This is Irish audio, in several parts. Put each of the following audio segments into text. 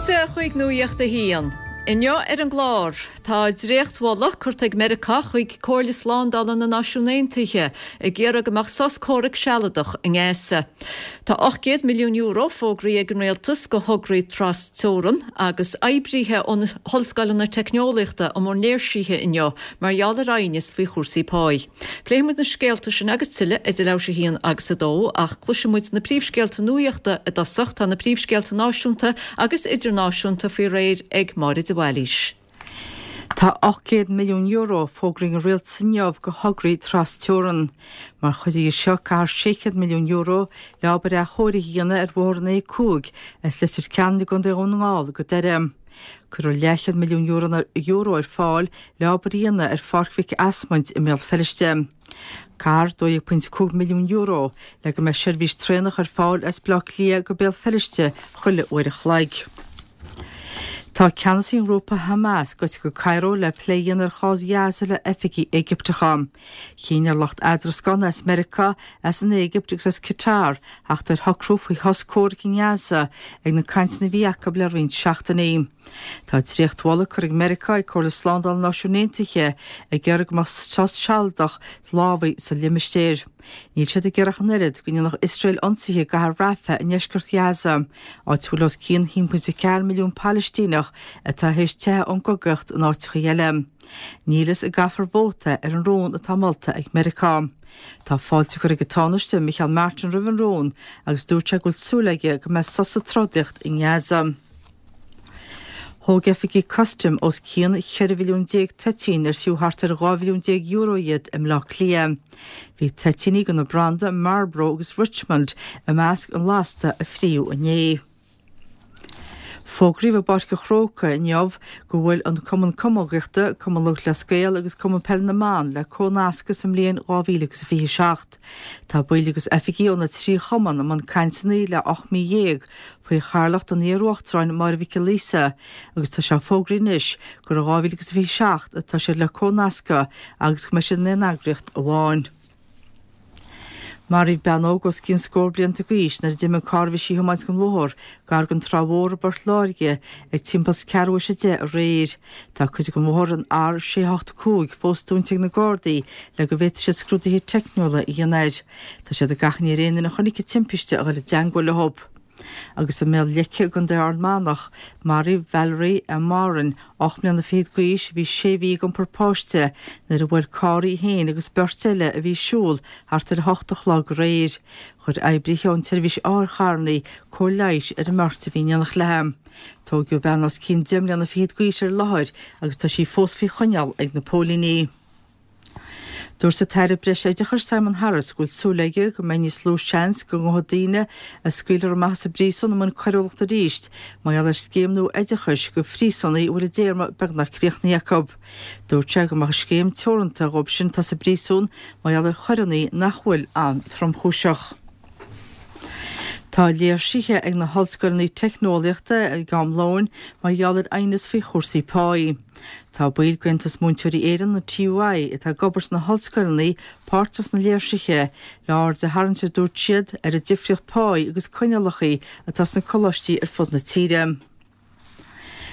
Fáilte chuig Nuacht a hAon. Inniu ar an gclár, tá dréachtmholadh curtha ag Meiriceá chuig Comhairle Slándála na Náisiún Aontaithe ag iarraidh go mbeadh sos comhraic sealadach i nGaza. Tá €800 milliún fógraithe ag an Rialtas do thograí tras-teorann agus oibrithe ó na hollscoileanna teicneolaíochta i mbun léirsithe inniu mar gheall ar aighneas faoi chúrsaí páí. Pléifidh muid na scéalta sin agus tuilleadh idir leathuair tar éis a haon agus a dó, ach cloisfidh muid na príomhscéalta nuachta i dtosach. Tá na príomhscéalta náisiúnta agus idirnáisiúnta faoi réir ag Máire de Bhailís. Tá €800 milliún fógraithe ag an Rialtas inniu do thograí tras-teorann. Mar chuid dhe seo caithfear €600 milliún le obair athchóirithe a dhéanamh ar bhóthar an A5 as Leitir Ceanainn i gContae Dhún na nGall go Doire. Cuirfear leathchéad milliún euro ar fáil le obair a dhéanamh ar Pháirc Mhic Asmaint i mBéal Feirste. Caithfear €12.5 milliún le go mbeidh seirbhís traenach ar fáil as Baile Átha Cliath go Béal Feirste chuile uair a chloig. Tá ceannasaí an ghrúpa Hamas gaibhte go Cairo le plé a dhéanamh ar chás Ghaza le oifigigh Éigipteacha. Chinn ar lucht eadrascána as Meiriceá, as an Éigipt agus as Qatar theacht ar shocrú faoi shos comhraic i nGaza ag na cainteanna a bhí acu le roinnt seachtainí. Tá dréachtmholadh curtha ag Meiriceá ag Comhairle Slándála na Náisiún Aontaithe ag iarraidh go mbeadh sos sealadach lámhaigh sa limistéar. Níl siad ag iarraidh ach an oiread go ndéanfadh Iosrael ionsaithe i gcathair Rafah i ndeisceart Ghaza, áit a bhfuil os cionn 1.4 milliún Palaistíneach atá théis teitheadh ón gcogaíocht in áiteacha eile. Níl a fhios an gcaithfear vóta ar an rún atá molta ag Meiriceá. Tá fáilte curtha ag an Tánaiste, Micheál Martin roimh an rún agus dúirt sé go bhfuil súil aige go mbeidh sos sa trodaíocht i nGaza. Thóg oifigigh custaim os cionn 14 mhilliún toitín ar fiú thart ar €12 mhilliún iad i mBleá Cliath. Bhí toitíní de na branda Marlboro agus Richmond i measc an lasta a fríodh inné. Fógraíodh i bPáirc an Chrócaigh inniu go bhfuil an Cumann Camógaíochta, Cumann Lúthchleas Gael agus Cumann Peile na mBan le comhnascadh sa mbliain 2027. Tá baill agus oifigigh ó na 3 chumann i mbun cainteanna le 18 mí faoi chathaoirleacht an iar-uachtaráin Máire Mhic Giolla Íosa agus tá sé fógraithe anois gur i 2027 atá siad le comhnascadh agus go mbeidh siad in aon eagraíocht amháin. Maraíodh bean óg os cionn scór blianta d'aois nuair a d'imigh an carr a bhí sí a thiomáint den bhóthar gar don Trá Mhór i bPort Láirge ag timpeall is ceathrú théis a 10 aréir. Tá cuid den bhóthar, an R685, fós dúnta ag na Gardaí le go bhféadfaidh siad scrúduithe teicniúla a dhéanamh air. Tá siad ag achainí ar aon duine a chonaic an timpiste a dhul i dteangmháil leo. Agus i mBéal Leice i gContae Ard Mánach, maraíodh Valerie M. Moran, 8 mbliana fichead d'aois, a bhí sé mhí ag iompar páiste, nuair a bhuail carr í féin agus beirt eile a bhí ag siúl thart ar 8 a chlog aréir. Chuir oibrithe ón tseirbhís otharcharranna cóir leighis ar an mbeirt a bhí in éineacht léi. Tóigeadh bean os cionn 10 mbliana fichead d'aois ar an láthair agus tá sí fós faoi choinneáil ag na póilíní. Dúirt an tAire Breis-Oideachais Simon Harris go bhfuil súil aige go mbeidh níos lú seans go ngabhfaidh daoine a scaoilfear amach as an bpríosún i mbun coiriúlachta arís mar gheall ar scéim nua oideachais do phríosúnaigh a bhfuil a dtéarma beagnach críochnaithe acu. Dúirt sé go mbeadh an scéim teoranta dhóibh sin atá sa bpríosún mar gheall ar choireanna nach bhfuil an-tromchúiseach. Tá léirsithe ag na hollscoileanna teicneolaíochta ag am lóin mar gheall ar aighneas faoi chúrsaí páí. Tá baill d'Aontas Múinteoirí Éireann, an TUI, atá ag obair sna hollscoileanna páirteach sna léirsithe le aird a tharraingt, a dúirt siad, ar an difríocht páí agus coinníollacha atá sna coláistí ar fud na tíre.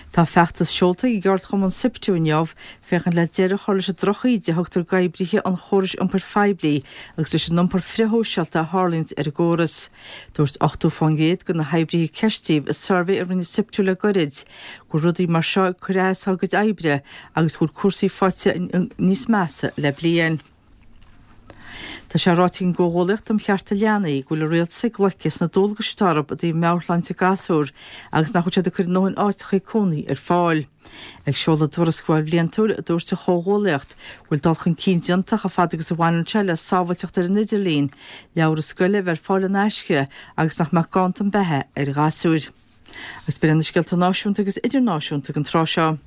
Tá feachtas seolta ag an gceardchumann Siptu inniu féachaint le deireadh a chur leis an drochíde a thugtar d'oibrithe an chórais iompair phoiblí agus leis an iompar frithshóisialta a tharlaíonns ar an gcóras. Dúirt 80% de na hoibrithe a ceistíodh i suirbhé a rinne Siptu le goirid go bhfuil rudaí mar seo ag cur as dá gcuid oibre agus go bhfuil cúrsaí faighte níos measa le bliain. Tá sé ráite ag an gComhghuallaíocht um Chearta Leanaí go bhfuil an Rialtas ag loiceadh sna dualgais atá orthu i dtaobh meabhairshláinte gasúr agus nach bhfuil siad ag cur a ndóthain áiteacha cónaí ar fáil. Ag seoladh a dtuarascáil bhliantúil, dúirt an Chomhghuallaíocht go bhfuil dul chun cinn déanta chomh fada agus a bhaineann sé le sábháilteacht ar an idirlíon, leabhra scoile a bheith ar fáil in aisce agus nach mbeadh ganntan beatha ar ghasúir. Agus b'in iad na scéalta náisiúnta agus idirnáisiúnta ag an tráth seo.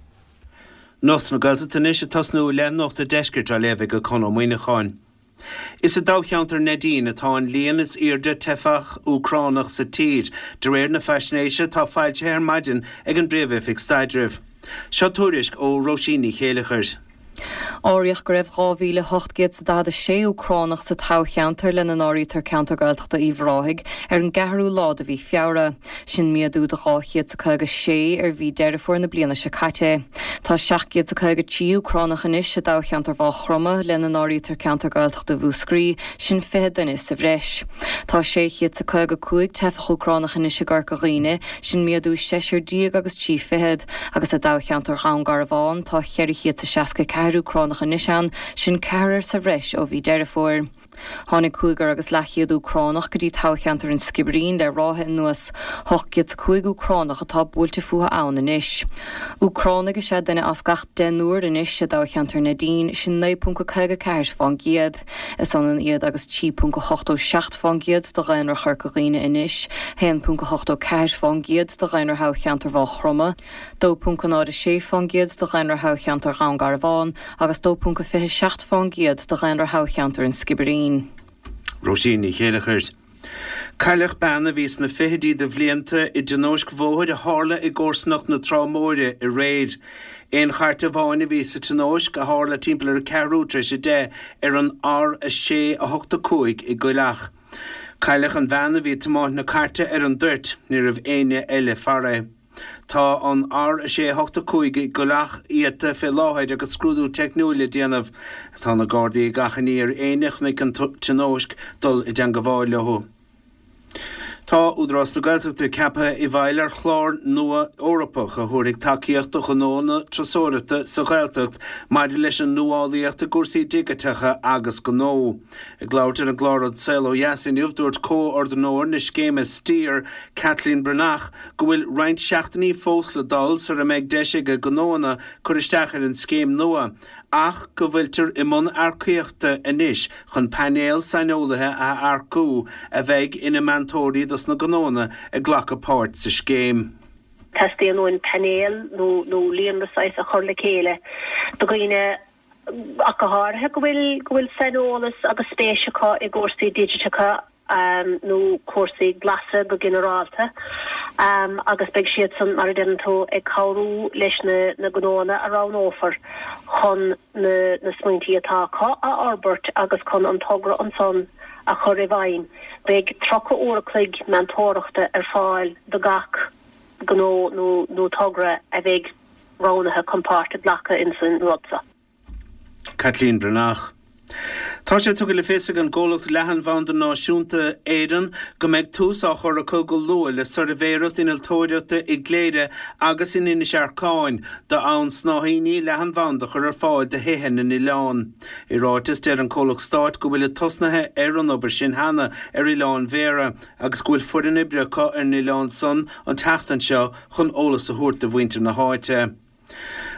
Nuacht na Gaeltachta anois ag tosnú le Nuacht a' Deiscirt á léamh ag Conn Ó Muíneacháin. Is i dtoghcheantar Neidín atá an líon is airde teifeach Úcránach sa tír, de réir na faisnéise atá foilsithe ar maidin ag an bPríomh-Oifig Staidrimh. Seo tuairisc ó Róisín Ní Chéileachair. Áiríodh go raibh 2,846 Úcránach sa toghcheantar, lena n-áirítear ceantar Gaeltachta Uíbh Ráthaigh, ar an gceathrú lá de mhí Feabhra. Sin méadú de 256 ar mhí Deireadh Fómhair na bliana seo caite. Tá 753 Úcránach anois i dtoghcheantar Mhaigh Chromtha, lena n-áirítear ceantar Gaeltachta Mhúscraí, sin 20 duine sa bhreis. Tá 655 teifeach Úcránach anois i gCorca Dhuibhne, sin méadú seisear déag agus trí fichead, agus i dtoghcheantar Dhún Garbhán tá 464 Úcránach anois ann, sin ceathrar sa bhreis ó mhí Deireadh Fómhair. Tháinig cúigear agus leathchéad Úcránach go dtí toghcheantar an Sciobairín le ráithe anuas. 805 Úcránach atá buailte fúthu ann anois. Úcránaigh is ea duine as gach deichniúr anois i dtoghcheantar Neidín, sin 9.54 fán gcéad. Is ionann iad agus 3.87 fán gcéad de dhaonra Chorca Dhuibhne anois, 1.84 fán gcéad de dhaonra thoghcheantar Mhaigh Chromtha, 2.06 fán gcéad de dhaonra thoghcheantar Dhún Garbhán agus 2.27 fán gcéad de dhaonra thoghcheantar an Sciobairín. Róisín Ní Chéileachair. Cailleadh bean a bhí sna fichidí de bhlianta i dtionóisc bhóthair a tharla i gcomharsanacht na Trá Móire aréir. Aon chairt amháin a bhí sa tionóisc, a tharla timpeall ar a ceathrú tar éis a 10 ar an R6 8 5 i gCoill Each. Cailleadh an bhean a bhí ag tiomáint na cairte ar an dtoirt, ní raibh éinne eile farae. Tá an R6 8 5 i gCoill Each iata fé láthair agus scrúdú teicniúil le déanamh. Tá na Gardaí ag achainí ar éinne a chonaic an tionóisc dul i dteangabháil leo. Tá Údarás na Gaeltachta ceaptha i bhfeighil ar chlár nua Eorpach a thabharfaidh tacaíocht do ghnóanna turasóireachta sa Ghaeltacht maidir leis an nuálaíocht i gcúrsaí digiteacha agus gnó. Ag labhairt ar an gclár An Saol Ó Dheas inniu, dúirt comhordaitheoir na scéime Steer, Kathleen Breathnach, go bhfuil roinnt seachtainí fós le dul sara mbeidh deis ag gnóanna cur isteach ar an scéim nua ach go bhfuiltear i mbun earcaíochta anois chun painéal saineolaithe a earcú a bheidh ina meantóirí dos na gnóanna ag glacadh páirt sa scéim. Teastaíonn uainn painéal nó líonra saghas a chur le chéile de dhaoine ach go háirithe go bhfuil go bhfuil saineolas agus spéis acu i gcúrsaí digiteacha nó cúrsaí glasa go ginearálta agus beidh siadsan, mar a deireann tú, ag cabhrú leis na gnóanna a roghnófar chun na smaointí atá acu a fhorbairt agus chun an togra ansan a chur i bhfeidhm. Beidh 30 uair a chloig meantóireachta ar fáil do gach gnó nó togra a bheidh roghnaithe chun páirt a ghlacadh insan rud seo. Caitlín Breathnach. Tá sé tugtha le fios ag an gcomhlacht Leathanbhanda Náisiúnta Éireann go mbeidh tús á chur acu go luath le suirbhéireacht innealtóireachta i gCléire agus in Inis Earcáin d'fhonn snáithíní leathanbhanda a chur ar fáil do thithe na n-oileán. I ráiteas deir an comhlacht stáit go bhfuilid tosnaithe ar an obair sin cheana ar Oileán Bhéarra agus go bhfuil foireann oibre acu ar an oileán san an tseachtain seo chun eolas a thabhairt do mhuintir na háite.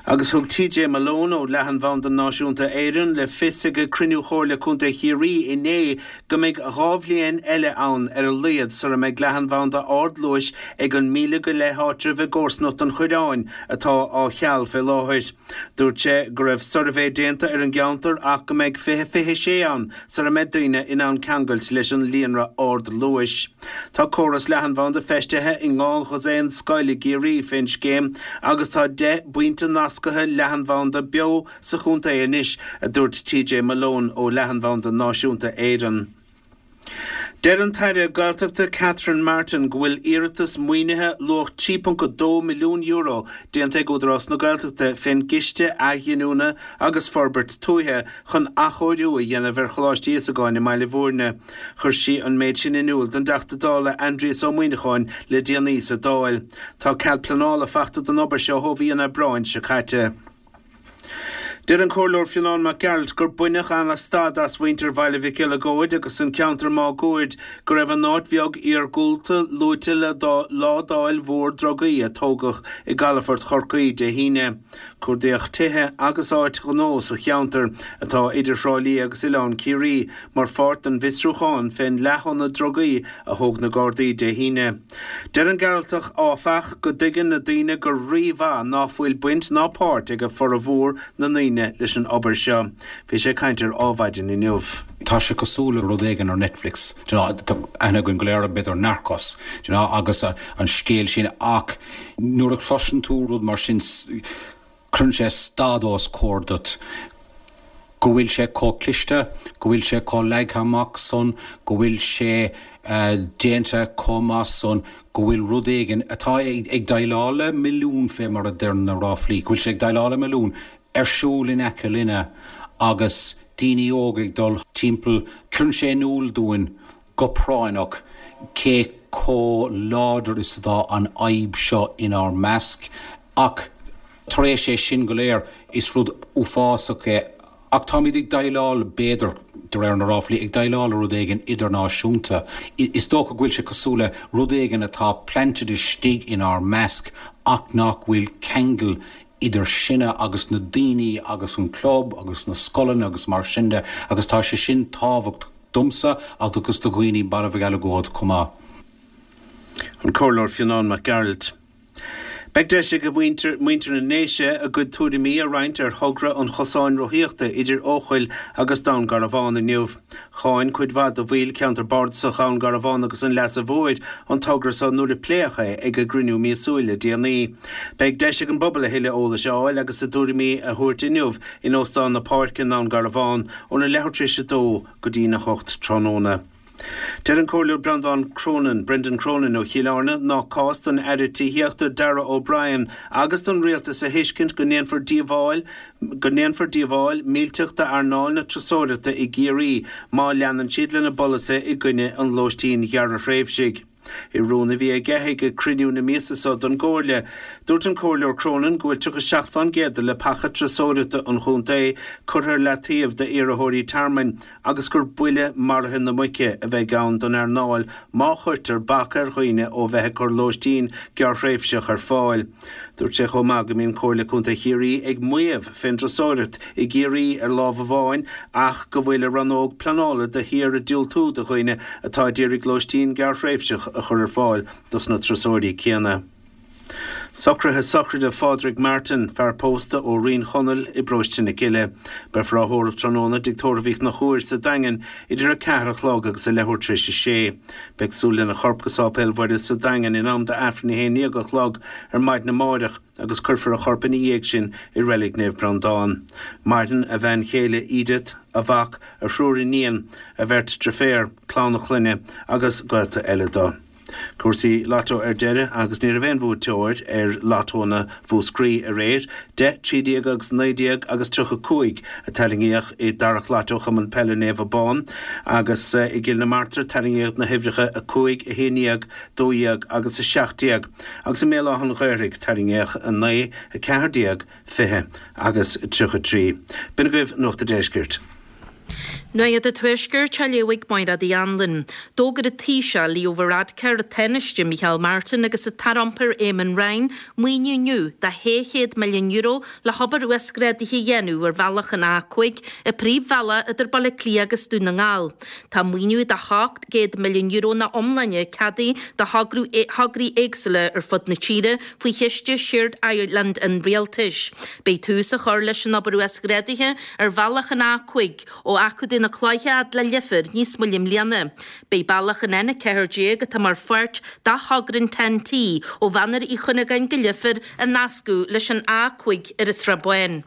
Agus thug TJ Malone ó Leathanbhanda Náisiúnta Éireann le fios ag cruinniú Chomhairle Contae Chiarraí inné go mbeidh 2 bhliain eile ann ar a laghad sara mbeidh leathanbhanda ardluais ag an míle go leith áitreabh i gcomharsanacht an Choireáin atá á cheal fé láthair. Dúirt sé go raibh suirbhé déanta ar an gceantar ach go mbeidh 2026 ann sara mbeidh daoine in ann ceangailt leis an líonra ardluais. Tá córas leathanbhanda feistithe i ndhá dhosaen scoil i gCiarraí fén scéim agus tá 10 bpointe nasctha leathanbhanda beo sa chontae anois, a dúirt TJ Malone ó Leathanbhanda Náisiúnta Éireann. Deir an tAire Gaeltachta Catherine Martin go bhfuil iarratas maoinithe luach €3.2 milliún déanta ag Údarás na Gaeltachta fén gCiste Athghiniúna agus Forbairt Tuaithe chun athchóiriú a dhéanamh ar Choláiste Íosagáin i mBaile Bhúirne. Chuir sí an méid sin in iúl don dTeachta Dála Aindrias Ó Muimhneacháin le déanaí sa Dáil. Tá cead pleanála fachta don obair seo ó mhí an Aibreáin seo caite. Deir an Comhairleoir Fionán Mac Gearailt gur baineadh an-stad as mhuintir Bhaile Mhic Eileagóid agus an ceantar máguaird go raibh an áit bheag iargúlta luaite le ládáil mhór drugaí a tógadh i gcalafort Chorcaí Dé hAoine. Cuardaíodh tithe agus áit ghnó sa cheantar, atá idir Thrá Lí agus Oileán Ciarraí, mar pháirt den bhfiosrúchán fén leath-thonna drugaí a thóg na Gardaí Dé hAoine. Deir an Gearaltach, áfach, go dtuigeann na daoine go rí-mhaith ná fuil baint ná páirt ag formhór na ndaoine leis an obair seo. Bhí sé ag caint ar Ádhmhaidin inniu. Tá sé cosúil le rud éigin ar Netflix, do you know, tá aithne againn go léir b'fhéidir Narcos, do you know, agus an scéal sin ach nuair a chloiseann tú rud mar sin cuireann sé stad os comhair duit. Go bhfuil sé chomh cliste, go bhfuil sé chomh leagtha amach san, go bhfuil sé déanta chomh maith san, go bhfuil rud éigin atá ag déileáil le milliún fé mar a deir na ráflaí, go bhfuil sé ag déileáil le milliún ar siúl in aice linne agus daoine óga ag dul timpeall, cuireann sé in iúl dúinn go práinneach cé chomh láidir is atá an fhadhb seo inár measc. Ach tar éis é sin go léir, is rud uafásach é. Ach táimid ag déileáil, b'fhéidir, de réir na ráflaí, ag déileáil le rud éigin idirnáisiúnta. Is dócha go bhfuil sé cosúil le rud éigin atá planted istigh inár measc ach nach bhfuil ceangal idir sinne agus na daoine agus an club agus na scoileanna agus mar sin de agus tá sé sin tábhachtach domsa agus do dhaoine Baile Mhic Eileagóid chomh maith. An Comhairleoir Fionán Mac Gearailt. Beidh deis ag muintir na nDéise a gcuid tuairimí a roinnt ar thogra an chosáin rothaíochta idir Eochaill agus Dún Garbhán inniu. Cháin cuid mhaith de bhaill Cheantar Bardasach Dhún Garbhán agus an Leasa Mhóir an togra so nuair a pléadh é ag a gcruinniú míosúil le déanaí. Beidh deis ag an bpobal a thuilleadh eolais a fháil agus a dtuairimí a thabhairt inniu in Óstán na Páirce i nDún Garbhán óna leathuair tar éis a dó go dtína hocht tráthnóna. Deir an Comhairleoir Breandán Cronin, Brendan Cronin ó Chill Airne nach cás don Aire Tithíochta Darragh O'Brien agus don Rialtas a thuiscint go ndéanfar díobháil go ndéanfar díobháil millteach d'earnáil na turasóireachta i gCiarraí má leanann siad lena bpolasaithe i gcoinne an lóistín ghearrthréimhsigh. I rún a bhí aige ag cruinniú na míosa so don gComhairle, dúirt an Comhairleoir Cronin go bhfuil 37% de leapacha turasóireachta an chontae curtha ar leataobh d'iarrthóirí tearmainn agus gur buille maraithe na muice a bheidh ann don earnáil má chuirtear bac ar dhaoine ó bheith ag cur lóistín gearrthréimhseach ar fáil. Dúirt sé chomh maith go mbíonn Comhairle Contae Chiarraí ag maíomh fén dturasóireacht i gCiarraí ar lámh amháin ach go bhfuil a rannóg pleanála de shíor ag diúltú do dhaoine atá a d'iarraidh lóistín gearrthréimhseach a chur ar fáil dos na turasóirí céanna. Socruithe sochraide Phádraig Martin, fear pósta ó Rinn Chonaill i bparóiste na Cille. Beifear á thórramh tráthnóna i dTigh Tórraimh Uí Chonchúir sa Daingean idir 4 a chlog agus a leathuair tar éis a sé. Beidh súil lena chorp go Sáipéal Mhuire sa Daingean in am d'Aifreann 11 a chlog ar maidin amáireach agus cuirfear a chorp ina dhiaidh sin i Reilig Naomh Breandán. Maireann a bhean chéile Edith, a mhac, a thriúr iníon, a bheirt driféar, clann a chlainne agus gaolta eile dó. Cúrsaí Lotto ar deireadh agus ní raibh aon bhuaiteoir ar Lottónna Mhúscraí aréir. 10, 13 agus 19 agus 35 a tarraingíodh i dtarrac Lotto Chumann Peile Naomh Abán agus i gCill na Martra tarraingíodh na huimhreacha 5, 11, 12 agus 17 agus i mBéal Átha an Ghaorthaidh tarraingíodh 9, 14, 20 agus 33. B'in agaibh Nuacht a' Deiscirt. Nuacht an Tuaiscirt á léamh ag Máiréad Uí Anluain. D'fhógair an Taoiseach Leo Varadkar, an Tánaiste Micheál Martin agus an tAire Iompair Eamon Ryan maoiniú inniu de €600 milliún le hobair uasghrádaithe a dhéanamh ar bhealach an A5, an príomhbhealach idir Baile Átha Cliath agus Dún na nGall. Tá maoiniú de €700 milliún ina iomláine ceadaithe do thograí éagsúla ar fud na tíre faoi chiste Shared Ireland an Rialtais. Beidh tús á chur leis an obair uasghrádaithe ar bhealach an A5 ó Achadh na Cloiche fhad le Leifear níos moille i mbliana. Beidh bealach an N14 atá mar pháirt de thogra an TEN-T ó Mhachaire Uí Chuinneagáin go Leifear á nascadh leis an A5 ar an tSrath Bán.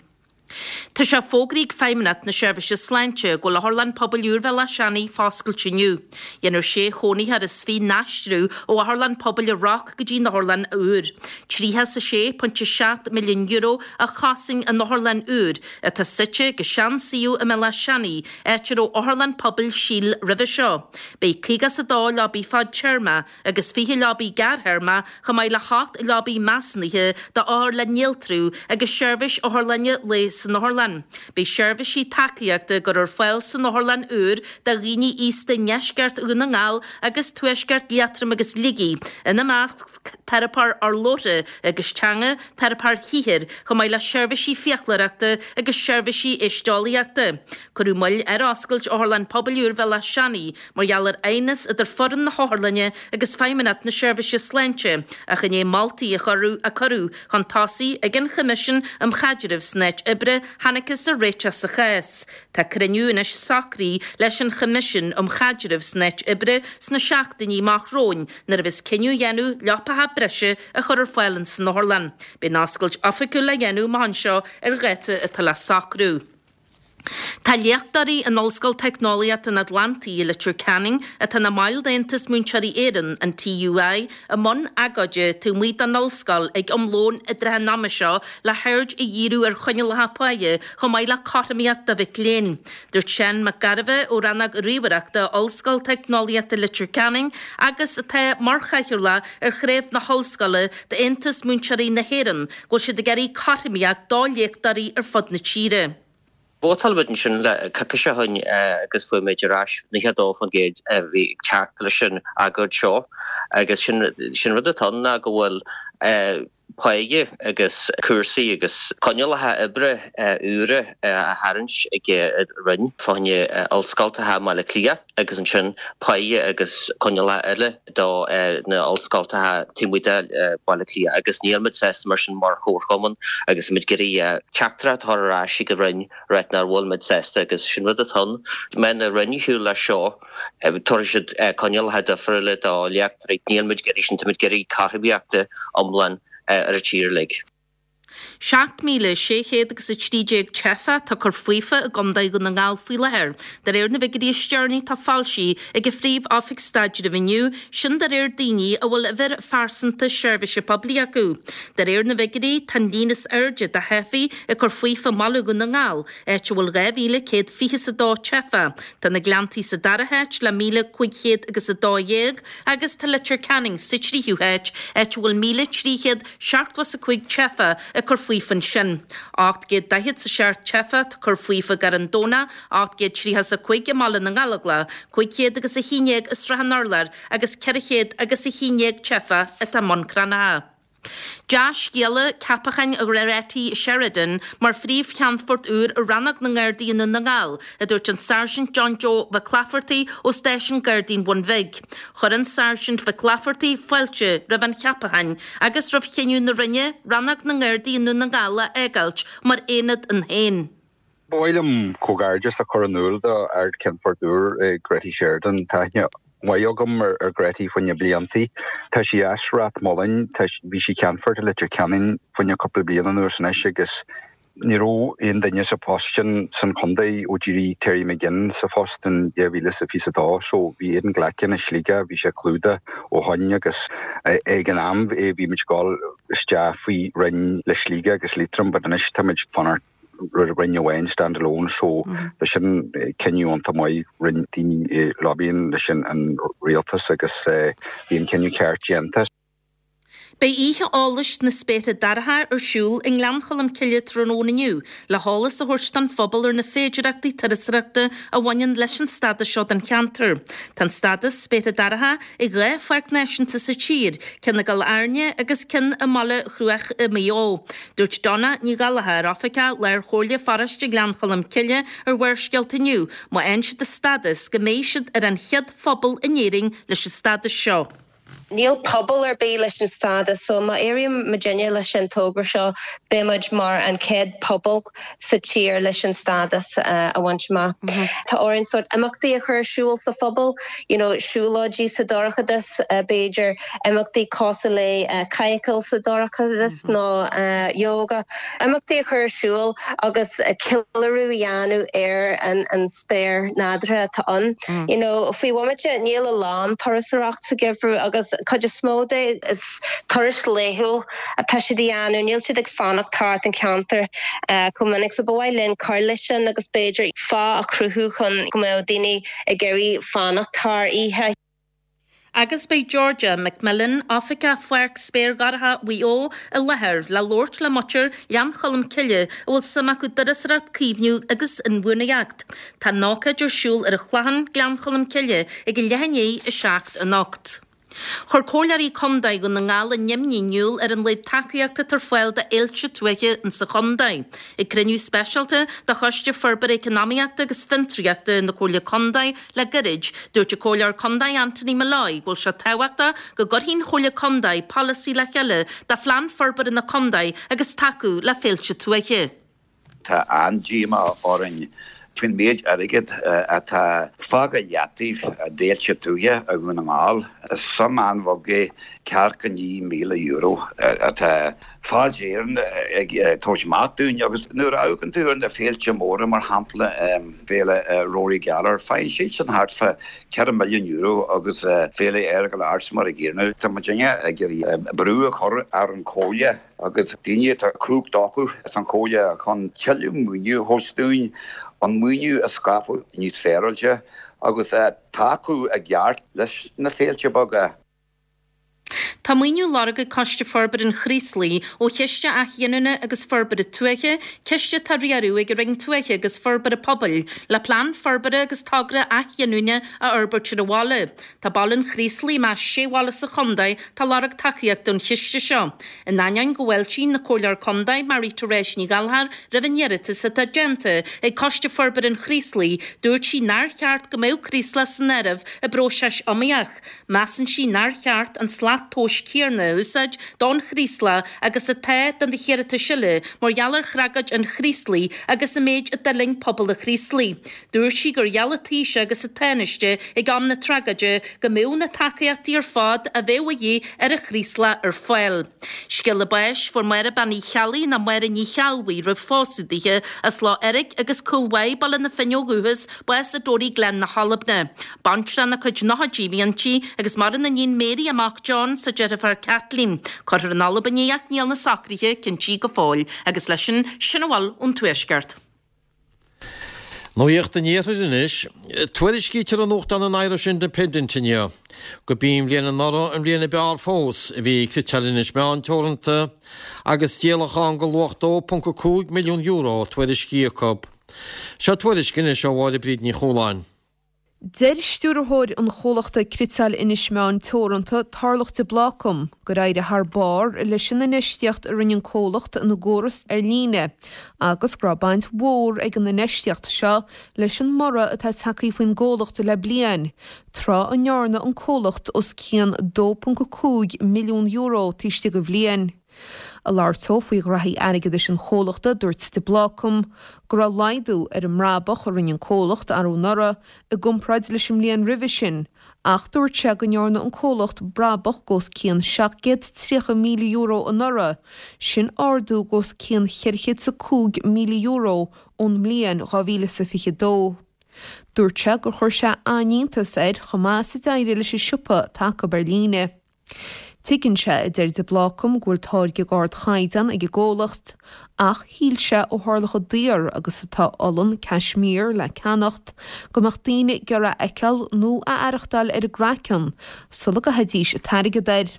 Tá sé fógraithe ag Feidhmeannacht na Seirbhíse Sláinte go bhfuil Otharlann Pobail úr Bhéal Átha Seanaidh foscailte inniu. Dhéanfar sé chónaitheoir is fiche n-aistriú ó Otharlann Pobail an Roc go dtí an otharlann úr. €36.7 milliún a chosain an otharlann úr, atá suite ag an sean-suíomh i mBéal Átha Seanaidh, áit a raibh Otharlann Pobail Síl roimhe seo. Beidh 52 leabaidh fadtéarma agus 20 leabaidh gearrthéarma chomh maith le hocht leabaidh measúnaithe d'othair le néaltrú agus seirbhís otharlainne lae san otharlann. Beidh seirbhísí tacaíochta á gcur ar fáil san otharlann úr do dhaoine aosta i ndeisceart Dhún na nGall agus tuaisceart Liatroim agus Shligigh, ina measc teiripeoir urlabhra agus teanga, teiripeoir shaothair, chomh maith le seirbhísí fiaclóireachta agus seirbhísí éisteolaíochta. Cuireadh moill ar oscailt Otharlann Pobail úr Bhéal Átha Seanaidh mar gheall ar aighneas idir foireann na hotharlainne agus Feidhmeannacht na Seirbhíse Sláinte ach i ndiaidh moltaí a a cuireadh chun tosaigh ag an Choimisiún um Chaidreamh san Áit Oibre thángthas ar réiteach sa chás. Tá cruinniú anois socraithe leis an Choimisiún um Chaidreamh san Áit Oibre sna seachtainí amach romhainn nuair a bheas cinneadh á dhéanamh leapacha breise a chur ar fáil ins an otharlann. Beidh an oscailt oifigiúil le dhéanamh amach anseo ar dháta atá le socrú. Tá léachtóirí in Ollscoil Teicneolaíochta an Atlantaigh i Leitir Ceanainn, atá ina mbaill d'Aontas Múinteoirí Éireann, an TUI, i mbun agóide taobh amuigh den ollscoil ag am lóin i dtrátha an ama seo le haird a dhíriú ar choinníollacha páighe chomh maith le cothromaíocht do mhic léinn. Dúirt Seán Mac Gairbheith ó Rannóg Ríomhaireachta Ollscoil Teicneolaíochta Leitir Ceanainn agus atá mar chathaoirleach ar chraobh na hollscoile d'Aontas Múinteoirí na hÉireann go bhfuil siad ag iarraidh cothromaíocht do léachtóirí ar fud na tíre. Vótáil muid ansin le coicís ó shin agus fuair muid ar ais 92% a bhí ag teacht leis an agóid seo agus sin sin rud atá ann ná go bhfuil páighe agus cúrsaí agus coinníollacha oibre úra á tharraingt ag an Roinn fá choinne ollscoltacha i mBaile Átha Cliath agus ansin páighe agus coinníollacha eile do na ollscoltacha taobh amuigh de Bhaile Átha Cliath agus níl muid sásta mar sin mar chomharchumann agus muid ag iarraidh teachtaireacht a chur ar ais ag an Roinn ráit nach bhfuil muid sásta agus sin rud atá ann. Má théann an Roinn ar shiúl leis seo tabharfaidh siad coinníollacha difriúla do léachtóirí. Níl muid ag iarraidh sin, tá muid ag iarraidh cothromaíochta iomlán ar an tír uilig. 7,600 agus 13 teifeach atá ag cur faofa i gContae Dhún na nGall faoi láthair, de réir na bhfigiúirí is deireanaí atá foilsithe ag an Phríomh-Oifig Staidrimh inniu, sin de réir daoine a bhfuil uimhir phearsanta seirbhíse poiblí acu. De réir na bhfigiúirí, tá an líon is airde de theifigh ag cur faofa i mBaile Dhún na nGall, áit a bhfuil 2,122 teifeach. Tá na Gleanntaí sa dara háit le 1,500 agus 12 agus tá Leitir Ceanainn sa tríú háit, áit a bhfuil 1,375 teifeach ag cur faofa ansin. 847 teifeach atá ag cur faofa i gCarn Domhnach, 835 i mBaile na nGallóglach, 500 agus 11 i Srath an Urláir agus 400 agus 11 teifeach atá i mBun Cranncha. Dea-scéala, ceapachán Ghretty Sheridan mar Phríomh-Cheannfort úr ar Rannóg na nGardaí i nDún na nGall, a dúirt an Sáirsint John Joe Mhic Laifeartaigh ó Stáisiún Gardaí an Bhun Bhig. Chuir an Sáirsint Mhic Laifeartaigh fáilte roimh an cheapachán agus roimh chinneadh na Roinne Rannóg na nGardaí i nDún na nGall a fhágáilt mar aonad ann féin. Ba mhaith liom comhghairdeas a chur in iúl do Ard-Cheannfort úr Gretty Sheridan. Tá aithne mhaith agam ar Gretty faoi na bliantaí. Tá sí as Ráth Moliain, bhí sí Ceannfort i Leitir Ceanainn fá choinne cúpla bliain anuas anois agus ní raibh aon duine sa phost sin san chontae ó d'éirigh Terry McGinn sa phost in 2022 so bhí Aidan Glackin i Sligeach, bhí sé clúdaithe ó shoin agus ag an am bhí muid ag dul isteach faoi roinn le Sligeach agus Liatroim but anois tá muid ag fanacht roinn amháin stand alone so tá sin cinneadh iontach maith rinne daoine lobbying leis an rialtas agus bhí an cinneadh ceart déanta. Beidh Oíche Eolais na Spéartha Dorcha ar siúl i nGleann Cholm Cille tráthnóna inniu le heolas a thabhairt don phobal ar na féidearthachtaí turasóireachta a bhaineann leis an stádas seo don cheantar. Tá an stádas Spéartha Dorcha ag 2 pháirc náisiúnta sa tír, ceann i gCill Airne agus ceann i mBaile Chruaich i Maigh Eo. Dúirt Donna Ní Ghallchóir, Oifigeach Lár-Chomhairle Pharóiste Ghleann Cholm Cille ar Bharrscéalta inniu, má fhaigheann siad an stádas, go mbeidh siad ar an chéad phobal in Éirinn leis an stádas seo. Níl pobal ar bith leis an stádas so má éiríonn muidinne leis an togra seo beidh muid mar an chéad pobal sa tír leis an stádas a bhaint amach. Tá orainn sórt imeachtaí a chur ar siúl sa phobal, you know siúlóidí sa dorchadas, b'fhéidir imeachtaí cosúil le cadhcáil sa dorchadas nó yoga, imeachtaí a chur ar siúl agus ceiliúradh a dhéanamh ar an spéir nádúrtha atá ann. You know faoi bhomaite níl a lán turasóireacht sa gheimhreadh agus cuid is mó de is turais laethúil atá siad a dhéanamh, níl siad ag fanacht thart an ceantar chomh minic so ba mhaith linn cur leis sin agus b'fhéidir fáth a chruthú chun go mbeadh daoine ag iarraidh fanacht thar oíche. Agus beidh Georgia McMillan, Oifigeach Pháirc Spéir Dhorcha Mhaigh Eo, i láthair le labhairt le muintir Ghleann Cholm Cille a bhfuil suim acu i dturasóireacht, caomhnú agus inbhuanaitheacht. Tá an ócáid ar siúl ar an Chlochán, Gleann Cholm Cille, ag a leath i ndiaidh 7 anocht. Chuir Comhairleoirí Contae Dhún na nGall a n-imní in iúl ar an laghad tacaíochta atá ar fáil do fhéilte tuaithe insa chontae. Ag cruinniú speisialta de Choiste Forbartha Eacnamaíochta agus Fiontraíochta na Comhairle Contae le gairid, dúirt an Comhairleoir Contae Anthony Molloy go bhfuil sé tábhachtach go gcuirfidh an Chomhairle Contae polasaí le chéile do phlean forbartha na contae agus tacú le féilte tuaithe. Tá an-díomá orainn. Faoin méid airgid atá fágtha i leataobh d'fhéilte tuaithe i Dhún na nGall, is suim an-bheag é €49,000 atá Fáilte Éireann ag tabhairt amach dúinn. Agus nuair a amharcann tú ar na féilte móra, mar shampla Féile Rory Gallagher, faigheann siadsan thart fá €4 milliún agus Féile Earagail Arts mar a gcéanna. Tá muidinne ag iarraidh brú a chur ar an Chomhairle. agus daoine atá cumhacht acu san Chomhairle chun tuilleadh maoiniú a thabhairt dúinn, an maoiniú a scaipeadh níos féaráilte agus tacú i gceart leis na féilte beaga. Tá maoiniú á lorg ag Coiste Forbartha an Chraoslaigh ó Chiste Athghiniúna agus Forbartha Tuaithe, ciste atá á riaradh ag an Roinn Tuaithe agus Forbartha Pobail, le plean forbartha agus togra athghiniúna a fhorbairt ar an bhaile. Tá baile an Chraoslaigh i measc sé bhaile sa chontae atá ag lorg tacaíochta ón chiste seo. In ainneoin go bhfáiltíonn an Comhairleoir Contae, Marie Therese Ní Ghallchóir, roimh an iarratas atá déanta ag Coiste Forbartha an Chraoslaigh, dúirt sí nár cheart go mbeadh Craoslach san áireamh i bpróiseas iomaíoch. Measann sí nár cheart an slat tomhais céanna a úsáid don Chraoslach agus atá do na hiarratais eile mar gheall ar thragóid an Chraoslaigh agus an méid a d'fhulaing pobal an Chraoslaigh. Dúirt sí gur gheall an Taoiseach agus an Tánaiste ag am na tragóide go mbeadh na tacaíochtaí ar fad a bheadh a dhíth ar an Chraoslach ar fáil. Scéala báis, Fuair Máire Bean Uí Cheallaigh nó Máire Ní Cheallbhuí roimh phósadh dithe, as Loch Eirg agus Cúil Mhaigh, Baile na Finne ó dhúchas, bás i dToraigh Gleann na hAlbna. Baintreach ina cuid nóchaidí a bhí inti agus maireann a níon Mary, a mac John 's a deirfiúr Kathleen. Cuirfear in Albain í ach níl na socruithe cinntí go fóill. Agus leis sin, sin a bhfuil ón Tuaisceart. Nuacht an Iarthair anois. Tuairiscítear i nuachtán an Irish Independent inniu go b'í an bhliain anuraidh an bhliain ab fhearr fós a bhí ag Cniotáil Inis Meáin Teoranta agus díolachán de luach €2.5 milliún tuairiscithe acu. Seo tuairisc anois ó Mháire Bríd Ní Chualáin. Deir stiúrthóir an chomhlachta Cniotáil Inis Meáin Teoranta, Tarlach de Blácam, gur éirigh thar barr leis an infheistíocht a rinne an comhlacht ina gcóras ar líne agus go raibh baint mhór ag an infheistíocht seo leis an mborradh atá tagtha faoin gcomhlacht le bliain, tráth a ndearna an comhlacht os cionn €2.5 milliún taobh istigh de bhliain. Ag labhairt dó faoi ghraithí airgeadais an chomhlachta, dúirt de Blácam go raibh laghdú ar an mbrabach a rinne an comhlacht arú anuraidh i gcomparáid leis an mbliain roimhe sin ach dúirt sé go ndearna an comhlacht brabach d'os cionn €730,000 anuraidh, sin ardú d'os cionn €405,000 ón mbliain 2022. Dúirt sé gur chuir sé an-iontas air chomh maith is a d'éirigh leis an siopa atá acu ar líne. Tuigeann sé, a deir de Blácam, go bhfuil táirge d'ardchaighdeán ag an gcomhlacht, ach shíl sé ó tharla chomh daor agus atá olann Cashmere le ceannacht, go mbeadh daoine ag iarraidh a fheiceáil nó a aireachtáil ar a gcraiceann sula gcaithfidís an t-airgead air.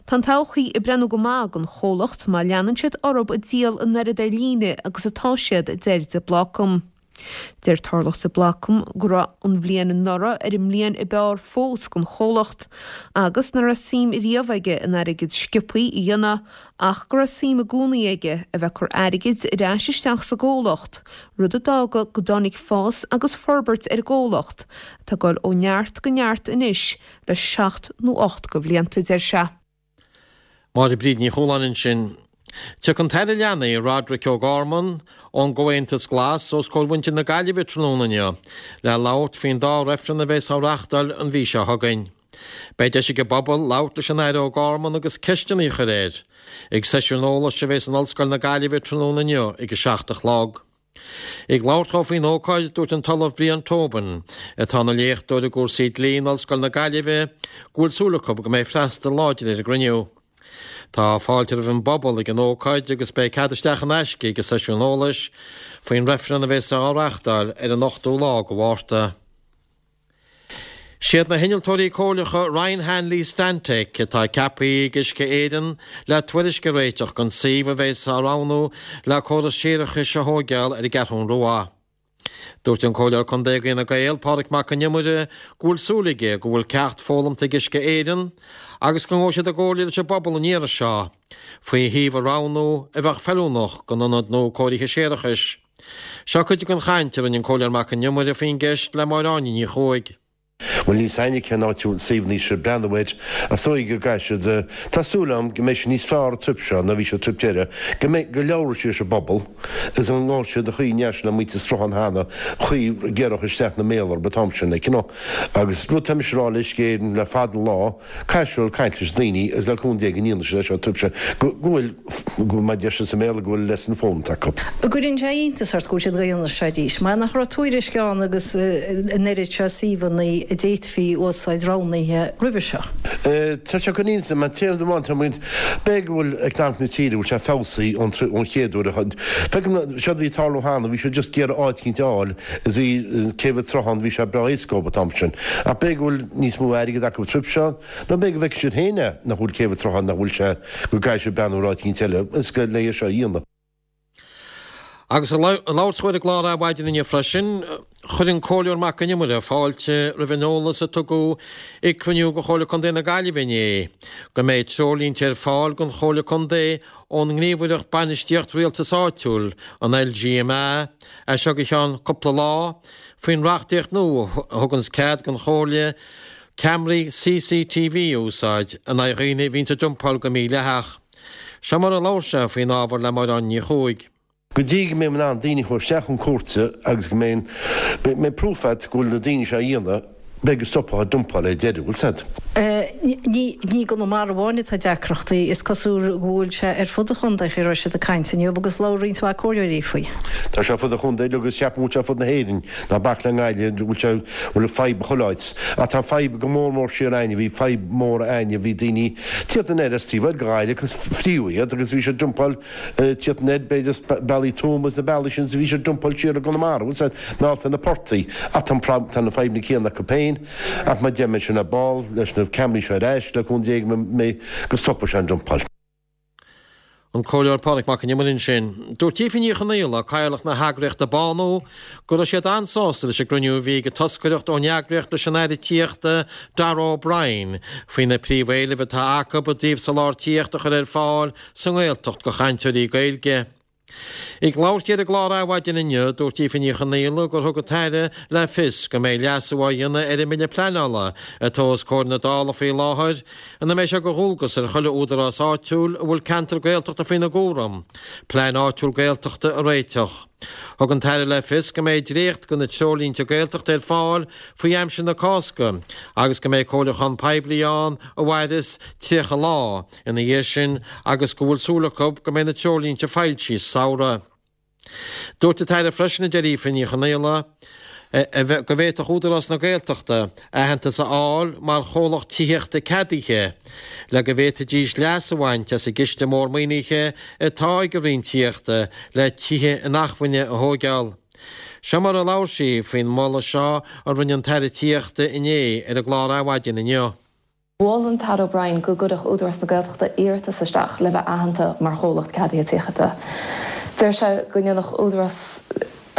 Tá an todhchaí ag breathnú go maith don chomhlacht má leanann siad orthu ag díol an oiread ar líne agus atá siad, a deir de Blácam. Deir Tarlach de Blácam go raibh an bhliain anuraidh ar an mbliain ab fhearr fós don chomhlacht agus nach raibh suim riamh aige in airgead sciobthaí a dhéanamh ach go raibh suim i gcónaí aige a bheith ag cur airgid ar ais isteach sa gcomhlacht, rud a d'fhága go dtáinig fás agus forbairt ar an gcomhlacht atá ag dul ó neart go neart anois le seacht nó 8 de bhlianta, deir sé. Máire Bríd Ní Chualáin ansin. Tiocfaidh an tAire Leanaí, Roderic O'Gorman, ón gComhaontas Glas os comhair mhuintir na Gaillimhe tráthnóna inniu le labhairt faoin dá reifreann a bheas á reáchtáil an mhí seo chugainn. Beidh deis ag an bpobal labhairt leis an Aire O'Gorman agus ceisteanna a chur air ag seisiún eolais a bheas in Ollscoil na Gaillimhe tráthnóna inniu ag a 7 a chlog. Ag labhairt dhó faoin ócáid, dúirt an tOllamh Brian Tobin, atá ina léachtóir i gcúrsaí dlí in Ollscoil na Gaillimhe, go bhfuil súil acu go mbeidh freastal láidir ar an gcruinniú. Tá fáilte roimh an bpobal ag an ócáid agus beidh cead isteach in aisce ag an seisiún eolais faoin reifreann a bheas á reáchtáil ar an 8ú lá de Mhárta. Siad na hinnealtóirí comhairleacha Ryan Hanley Stantec atá ceaptha ag Uisce Éireann le tuairisc a réiteach don suíomh a bheas á roghnú le córas séarachais a thóigeáil ar an gCeathrún Rua. Dúirt an Comhairleoir Contae d'Fhine Gael, Pádraig Mac Con Iomaire, go bhfuil súil aige go bhfuil ceacht foghlamta ag Uisce Éireann agus go ngabhfaidh siad i gcomhairle leis an bpobal an iarraidh seo faoi shuíomh a roghnú a bheadh feiliúnach don ionad nua cóirithe séarachais. Seo cuid den chaint a rinne an Comhairleoir Mac Con Iomaire faoin gceist le Máire Áine Ní Chuaig. Bhuel, níl 's a'inne cén áit a bhfuil suíomhanna siad ag breathnú air, ach is dóigh go gcaithfidh siad, tá súil agam go mbeidh siad níos fearr an trip seo ná bhí siad an trip deireadh, go mbeidh, go labhróidh siad leis an bpobal is an ngabhfaidh siad an chaoi a ndeachaigh siad le muintir Sruthán cheana, an chaoi a gcuirfeadh isteach na mbéal orthu an t-am sin, like, you know. Agus rud tá mise a rá le Uisce Éireann le fada an lá, Caithfidh siad caint leis na daoine agus le cúnamh Dé go ndéanfaidh siad é seo an trip seo go bhfuil, go mar a deir siad sa mBéarla, go bhfuil lesson foghlamtha acu. An gcuireann sé iontas ort go bhfuil siad ag déanamh seo arís? Mar nach raibh tuairisc ann agus an oiread seo suíomhanna a d'fhéadfaí a úsáid roghnaithe roimhe seo? Tá sé ag cur iontas orm, an t-aon rud amháin, tá muid, b'fhéidir go bhfuil eacnamaíocht na tíre, go bhfuil sé feabhsaithe ón ón chéad uair a, feicim séard a bhí ag tarlú cheana, bhí siad just ag iarraidh áit eicínt a fháil is bhí céibh an tSrutháin, bhí sé breá éasca dóibh an t-am sin. Ach b'fhéidir go bhfuil níos mó airgid acu an trip seo, nó b'fhéidir go bhfeicfidh siad féin é, nach bhfuil céibh an tSrutháin, nach bhfuil sé, go gcaithfidh siad breathnú ar áit eicínt eile, is go le é seo a dhéanamh. Agus ag labhairt dó ar an gclár Adhmhaidin inniu freisin, chuir an Comhairleoir Mac Con Iomaire fáilte roimh an eolas a tugadh ag cruinniú de Chomhairle Contae na Gaillimhe inné go mbeidh treoirlínte ar fáil don Chomhairle Contae ón nGníomhaireacht Bainistíocht Rialtais Áitiúil, an LGMA, as seo go ceann cúpla lá, faoin reachtaíocht nua a thuganns cead don Chomhairle ceamaraí CCTV a úsáid in aghaidh dhaoine a bhíonns ag dumpáil go mídhleathach. Seo mar a labhair sé faoin ábhar le Máire Áine Ní Chuaig. Go dtí go mbeidh in ann daoine a chur isteach chun cúirte agus go mbeidh mbeidh proof agat go bhfuil na daoine seo á dhéanamh, beidh go stopfá an dumpáil ar deireadh, bhfuil 's a'd. Ní i gConamara amháin atá deacrachtaí, is cosúil go bhfuil sé ar fud an chontae, chaoi a raibh siad ag caint inniu agus labhair roinnt mhaith comhairleoirí faoi. Tá sé ar fud an chontae agus ceapaim go bhfuil sé ar fud na hÉireann, ná bac le nGaillimh, go bhfuil sé, bhfuil fadhb chuile áit. Ach tá fadhb go mór mór siar a'inne, bhí fadhb mór a'inne, bhí daoine tíocht anoir as taobh thoir de Ghaillimh agus fríodh iad agus bhí siad dumpáil tíocht anoir, b'fhéidir as bealaí Tuama agus na bealaí sin, bhí siad dumpáil siar i gConamara, bhfuil 's a'd, meallta na portaigh. Ach tá tá na fadhbanna céanna acu féin, ach mar deir mé sin ar ball, leis na ceamaraí seo ar ais, le cúnamh Dé go mbeidh, go stopfaidh sé an dumpáil. An Comhairleoir Pádraig Mac Con Iomaire ansin. Dúirt Aoife Ní Chonaola, Cathaoirleach na heagraíochta Bánú, go raibh siad an-sásta leis an gcruinniú a bhí ag an toscaireacht ón eagraíocht leis an Aire Tithíochta Darragh O'Brien faoi na príomhéilimh atá acu i dtaobh soláthar tithíochta a chur ar fáil sa nGaeltacht do chainteoirí Gaeilge. Ag labhairt di ar an gclár Adhmhaidin inniu, dúirt Aoife Ní Chonaola gur thug an tAire le fios go mbeidh leasú á dhéanamh ar an mBille Pleanála atá os comhair na Dála faoi láthair ina mbeidh sé de dhualgas ar chuile údarás áitiúil a bhfuil ceantar Gaeltachta faoina gcúram, plean áitiúil Gaeltachta a réiteach. Thug an tAire le fios go mbeidh dréacht de na treoirlínte Gaeltachta ar fáil faoi aimsir na Cásca agus go mbeidh comhairliúchán poiblí ann a mhairfeas 30 lá ina dhiaidh sin agus go bhfuil súil acu go mbeidh na treoirlínte foilsithe sa samhradh. Dúirt an tAire freisin, a deir Aoife Ní Chonaola, go bhféadfadh Údarás na Gaeltachta aitheantas a fháil mar chomhlacht tithíochta ceadaithe le go bhféadfaidís leas a bhaint as an gciste mór maoinithe atá ag an Roinn Tithíochta le tithe inacmhainne a thóigeáil. Seo mar a labhair sí faoin moladh seo a rinne an tAire Tithíochta inné ar an gclár Adhmhaidin inniu. Mhol an tAire O'Brien go gcuirfeadh Údarás na Gaeltachta iarratas isteach le bheith aitheanta mar chomhlacht ceadaithe tithíochta. Deir sé go ndéanfadh Údarás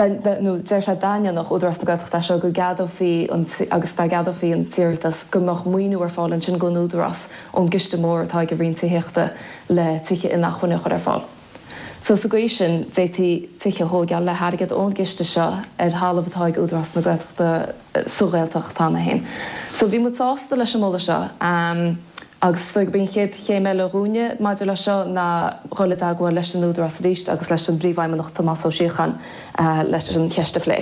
nó deir sé dá ndéanfadh Údarás na Gaeltachta é seo go gceadófaí an agus dá gceadófaí an t-iarratas go mbeadh maoiniú ar fáil ansin don Údarás ón gciste mór atá ag an Roinn Tithíochta le tithe inacmhainne a chur ar fáil. So sa gcaoi sin, d'fhéadfaí tithe a thóigeáil le hairgead ón gciste seo ar thalamh atá ag Údarás na Gaeltachta sa Ghaeltacht cheana féin. So bhí muid sásta leis an moladh seo agus is dóigh gurb í an chéad chéim eile dhúinne maidir leis seo ná dhul i dteagmháil leis an Údarás arís agus leis an bPríomhfheidhmeannach Tomás Ó Síocháin leis an cheist a phlé.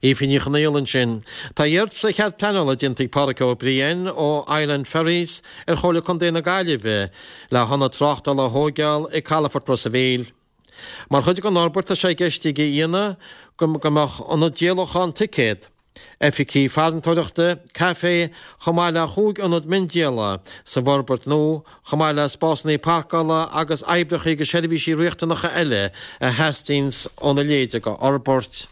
Aoife Ní Chonaola ansin. Tá iarratas ar chead pleanála déanta ag Pádraic Ó Briain ó Island Ferries ar Chomhairle Contae na Gaillimhe le hionad tráchtála a thóigeáil ag Calafort Ros a' Mhíl. Mar chuid den fhorbairt tá sé i gceist aige a dhéanamh go mbeadh ionad díolachán ticéad, oifigí farantóireachta, caifé, chomh maith le chúig ionad miondíola sa bhforbairt nua, chomh maith le spásanna páirceála agus oibreacha agus seirbhísí riachtanacha eile a theastaíonns óna leithéid de fhorbairt.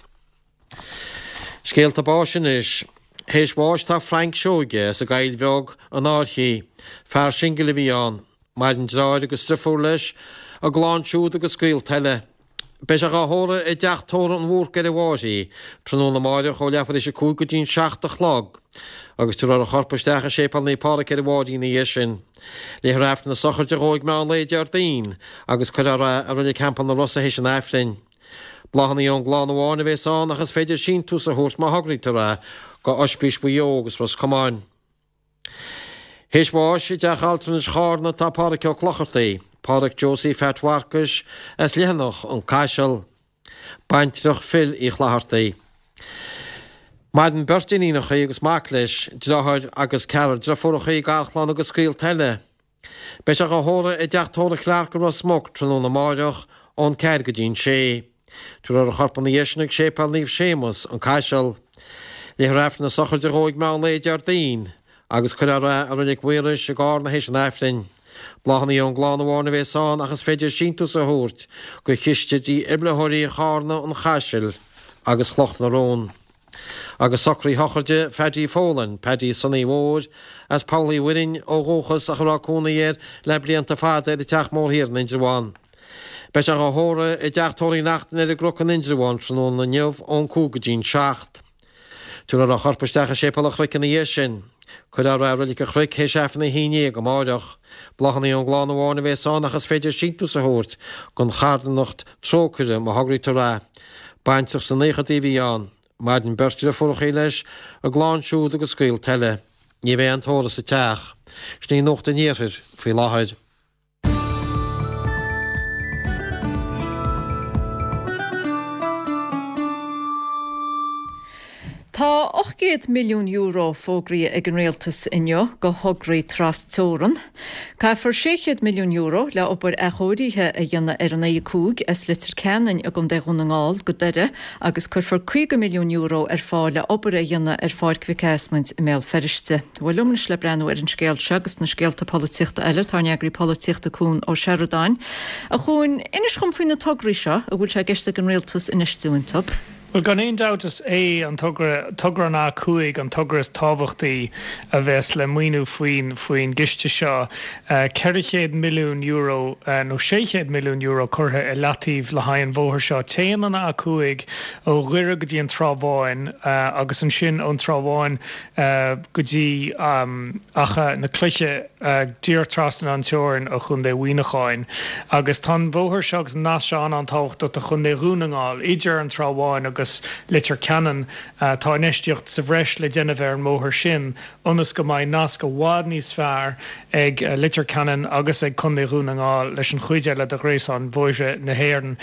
Scéalta báis anois. Théis bháis tá Frank Seoige as an gCoill Bheag, an Fhairche. Fear singil a bhí ann. Maireann deartháir agus driofúr leis, a gclann siúd agus gaolta eile. Beidh sé dhá thórramh i dteach tórraimh an Bhúrcaigh ar an bhFairche, tráthnóna amáireach ó leathuair théis 5 go dtí'n 7 a chlog, agus tabharfar a chorp isteach i Séipéal Naomh Pádraig ar an bhFairche ina dhiaidh sin. Léifear Aifreann na sochraide dhó ag meán lae Déardaoin, agus cuirfear é i Reilig Theampall na Rosa théis an Aifrinn. Bláthanna ón gclann amháin a bhéas ann ach is féidir síntiús a thabhairt má thograítear é. go Oispís Mhaigh Eo agus Ros Comáin. Théis bháis i dTeach Altranais Chárna atá Pádhraic Ó Clochartaigh, Pádhraic Josie Pheait Mharcais as Leitheanach, An Caiseal. Baintreach Phil Uí Chlochartaigh. Maireann beirt iníonacha agus mac leis, deartháir agus ceathrar driofúracha, garchlann agus gaolta eile. Beidh sé dhá thórramh i dTeach Tórraimh Clarke i Ros Muc tráthnóna amáireach ón 4 go dtí an 6. Tabharfar a chorp ina dhiaidh sin chuig Séipéal Naomh Séamus, An Caiseal. Léifear Aifreann na sochraide dhó ag meán lae Déardaoin agus cuirfear é i Reilig Mhaorais i gCárna théis an Aifrinn. Bláthanna ón gclann amháin a bhéas ann ach is féidir síntiús a thabhairt go Chiste Dífhibrileoirí Chárna, An Chaisil agus Chloch na Rón. Agus socruithe sochraide Phaddy Folan, Paddy Sonaí Mhóir, as Poll Uí Mhuirinn ó dhúchas ach a raibh cónaí air le blianta fada ar an Teach Mór Thiar in Indreabhán. Beidh sé dhá thórramh i dTeach Tórraimh Uí Neachtain ar an gCnoc in Indreabhán tráthnóna inniu ón 5 go dtí'n 7. Tabharfar a chorp isteach i Séipéal an Chnoic ina dhiaidh sin. Cuirfear é i Reilig an Chnoic théis Aifreann a 11 amáireach. Bláthanna ón gclann amháin a bhéas ann ach is féidir síntiús a thabhairt don charthanacht Trócaire má thograítear é. Baintreach sna naochadaí a bhí ann. Maireann beirt driofúrachaí leis, a gclann siúd agus gaolta eile. Ní bheidh aon tórramh sa teach. Sin í Nuacht an Iarthair faoi láthair. Tá €800 milliún fógraithe ag an Rialtas inniu do thograí tras-teorann. Caithfear €600 milliún le obair athchóirithe a dhéanamh ar an A5 as Leitir Ceanainn i gContae Dhún na nGall go Doire agus cuirfear €50 milliún ar fáil le obair a dhéanamh ar Pháirc Mhic Ásmaint i mBéal Feirste. Bhuel liom anois le breathnú ar an scéal seo agus na scéalta polaitíochta eile tá ár n-eagraí polaitíochta Cuan Ó Seireadáin. A Chuain, inis dhom faoi na tograí seo a bhfuil sé i gceist ag an Rialtas infheistiú iontu. Bhuel, gan aon dabht is é an togra, togra an A5 an togra is tábhachtaí a bheas le maoiniú faoin faoin gciste seo. €400 milliún nó €600 milliún curtha i leataobh le haghaidh an bhóthair seo. Téann an A5 ó Dhoire go dtí an Trá Bháin agus ansin ón Trá Bháin go dtí Achadh na Cloiche díreach trasna an teorainn ó Chontae Mhuineacháin. Agus tá an bhóthar seo agus an nasc seo an-an-tábhachtach do Chontae Dhún na nGall. Idir an Trá Bháin agus Leitir Ceanainn tá infheistíocht sa bhreis le déanamh ar an mbóthar sin ionas go mbeidh nasc i bhfad níos fearr ag Leitir Ceanainn agus ag Contae Dhún na nGall leis an chuid eile de ghréasán bhóithre na hÉireann.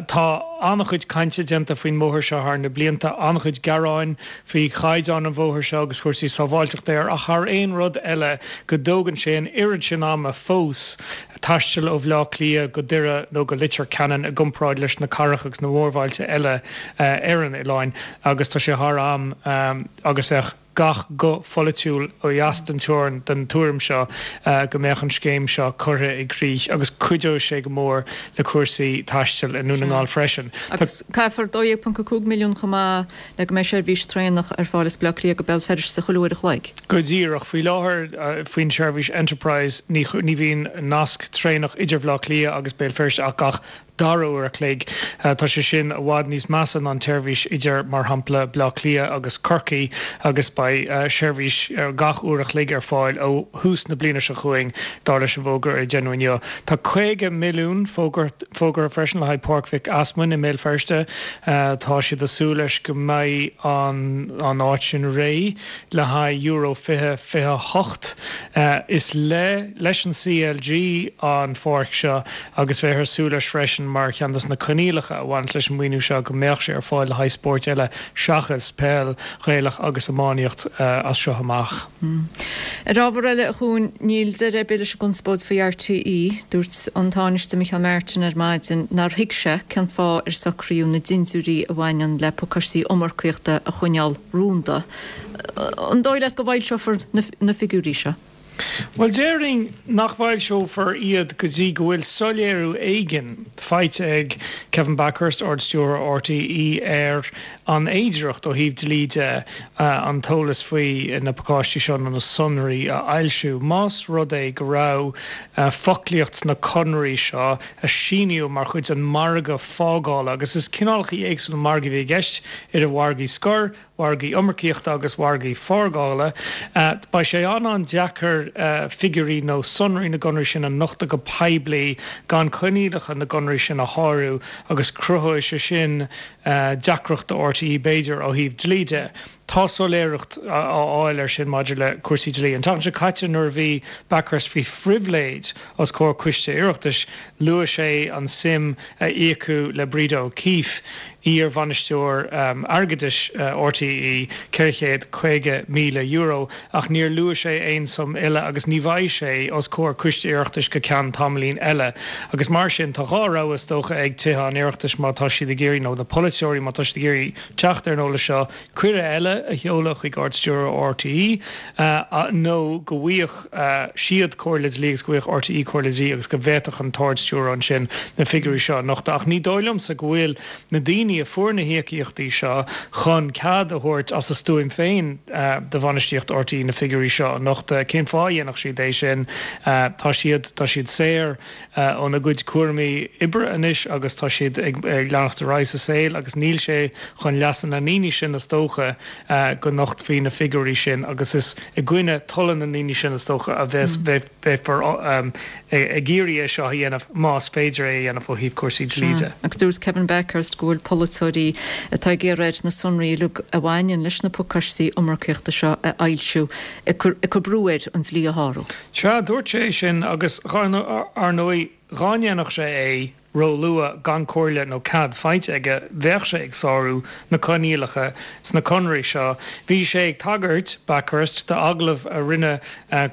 Tá an-chuid cainte déanta faoin mbóthar seo thar na blianta, an-chuid gearáin faoi chaighdeán an bhóthair seo agus chúrsaí sábháilteachta air ach thar aon rud eile go dtógann sé an oiread sin ama fós taisteal ó Bhleá Cliath go Doire nó go Leitir Ceanainn i gcomparáid leis na cathracha agus na mórbhailte eile ar an oileán agus tá sé thar am agus bheadh gach guth pholaitiúil ó dheas den teorainn den tuairim seo go mbeadh an scéim seo curtha i gcrích agus cuideoidh sé go mór le cúrsaí taistil i nDún na nGall freisin. Agus caithfear 12.5 milliún chomh maith le go mbeidh seirbhís traenach ar fáil as Baile Átha Cliath go Béal Feirste chuile uair a chloig. Go díreach. Faoi láthair, faoin tseirbhís Enterprise, ní bhíonn nasc traenach idir Bhaile Átha Cliath agus Béal Feirste ach gach dara uair a chloig. Tá sé sin i bhfad níos measa ná an tseirbhís idir, mar shampla, Baile Átha Cliath agus Corcaigh agus beidh seirbhís gach uair a chloig ar fáil ó thús na bliana seo chugainn, dar leis an bhfógra a deineadh inniu. Tá 50 milliún fógartha freisin le haghaidh Páirc Mhic Easmainn i mBéal Feirste. Tá siad ag súil leis go mbeidh an áit sin réidh le haghaidh Euro 2028. Is le leis an CLG an pháirc seo agus bheifear ag súil leis freisin mar cheann de na coinníollacha a bhaineas leis an maoiniú seo go mbeadh sé ar fáil le haghaidh spóirt eile seachas peil Ghaelach agus iománaíocht as seo amach. Ar ábhar eile, a Chuain, níl deireadh ar bith leis an gconspóid faoi RTÉ. Dúirt an Tánaiste Micheál Martin ar maidin nár thuig sé cén fáth ar socraíodh na dintiúirí a bhaineann le pacáistí iomarcaíochta a choinneáil rúnda. An dóigh leat go bhfoilseofar na figiúirí seo? Bhuel, déarfainn nach bhfoilseofar iad go dtí go bhfuil soiléiriú éigin faighte ag Kevin Bakhurst, Ard-Stiúrthóir RTÉ, ar an fhéidearthacht ó thaobh dlí de an t-eolas faoi na pacáistí seo nó na sonraí a fhoilsiú. Más rud é go raibh foclaíocht sna conarthaí seo a síníodh mar chuid den mhargadh fágála, agus is cineálacha éagsúla margaí a bhí i gceist, idir mhargaí scoir, mhargaí iomarcaíochta agus mhargaí fágála, beidh sé an-an-deacair. féidir figiúirí nó sonraí na gconarthaí sin a nochtadh go poiblí gan coinníollacha na gconarthaí sin a shárú agus cruthóidh sé sin deacracht do RTÉ b'fhéidir ó thaobh dlí de. Tá soiléireacht á fháil air sin maidir le cúrsaí dlí. An tseachtain seo caite nuair a bhí Bakhurst faoi phribhléid os comhair coiste Oireachtais, luaigh sé an suim a íocadh le Breda O'Keeffe, iar-bhainisteoir airgeadais RTÉ, €450,000, ach níor luaigh sé aon suim eile agus ní bheidh sé os comhair coiste Oireachtais go ceann tamaillín eile. Agus mar sin, tá dhá rogha is dócha ag Tithe an Oireachtais má tá siad ag iarraidh, nó na polaiteoirí má tá siad ag iarraidh teacht ar an eolas seo, cuireadh eile a sheoladh chuig Ard-Stiúrthóir RTÉ nó go bhfaigheadh siad comhairle dlí agus go bhfaigheadh RTÉ comhairle dlí agus go bhféadfadh an tArd-Stiúrthóir ansin na figiúirí seo a nochtadh. Ach ní dóigh liomsa go bhfuil na daoine a fuair na híocaíochtaí seo chun cead a thabhairt as a stuaim féin do bhainistíocht RTÉ na figiúirí seo a nochtadh. Cén fáth a dhéanfadh siad é sin? Tá siad, tá siad saor. óna gcuid cúraimí oibre anois agus tá siad ag leanacht ar aghaidh sa saol agus níl sé chun leasa na ndaoine sin is dócha go nochtfaí na figiúirí sin agus is i gcoinne tola na ndaoine sin is dócha a bheas beifear ag iarraidh é seo a dhéanamh más féidir é a dhéanamh ó thaobh cúrsaí dlí de. Agus dúirt Kevin Bakhurst go bhfuil polaiteoirí atá ag iarraidh air na sonraí uilig a bhaineann leis na pacáistí iomarcaíochta seo a fhoilsiú ag cur brú air an dlí a shárú. Sea, dúirt sé é sin agus, ar ndóigh, dhá ndéanfadh sé é ró-luath gan comhairle nó cead faighte aige, bheadh sé ag sárú na coinníollacha sna conarthaí seo. Bhí sé ag tagairt, Bakhurst, d'agallamh a rinne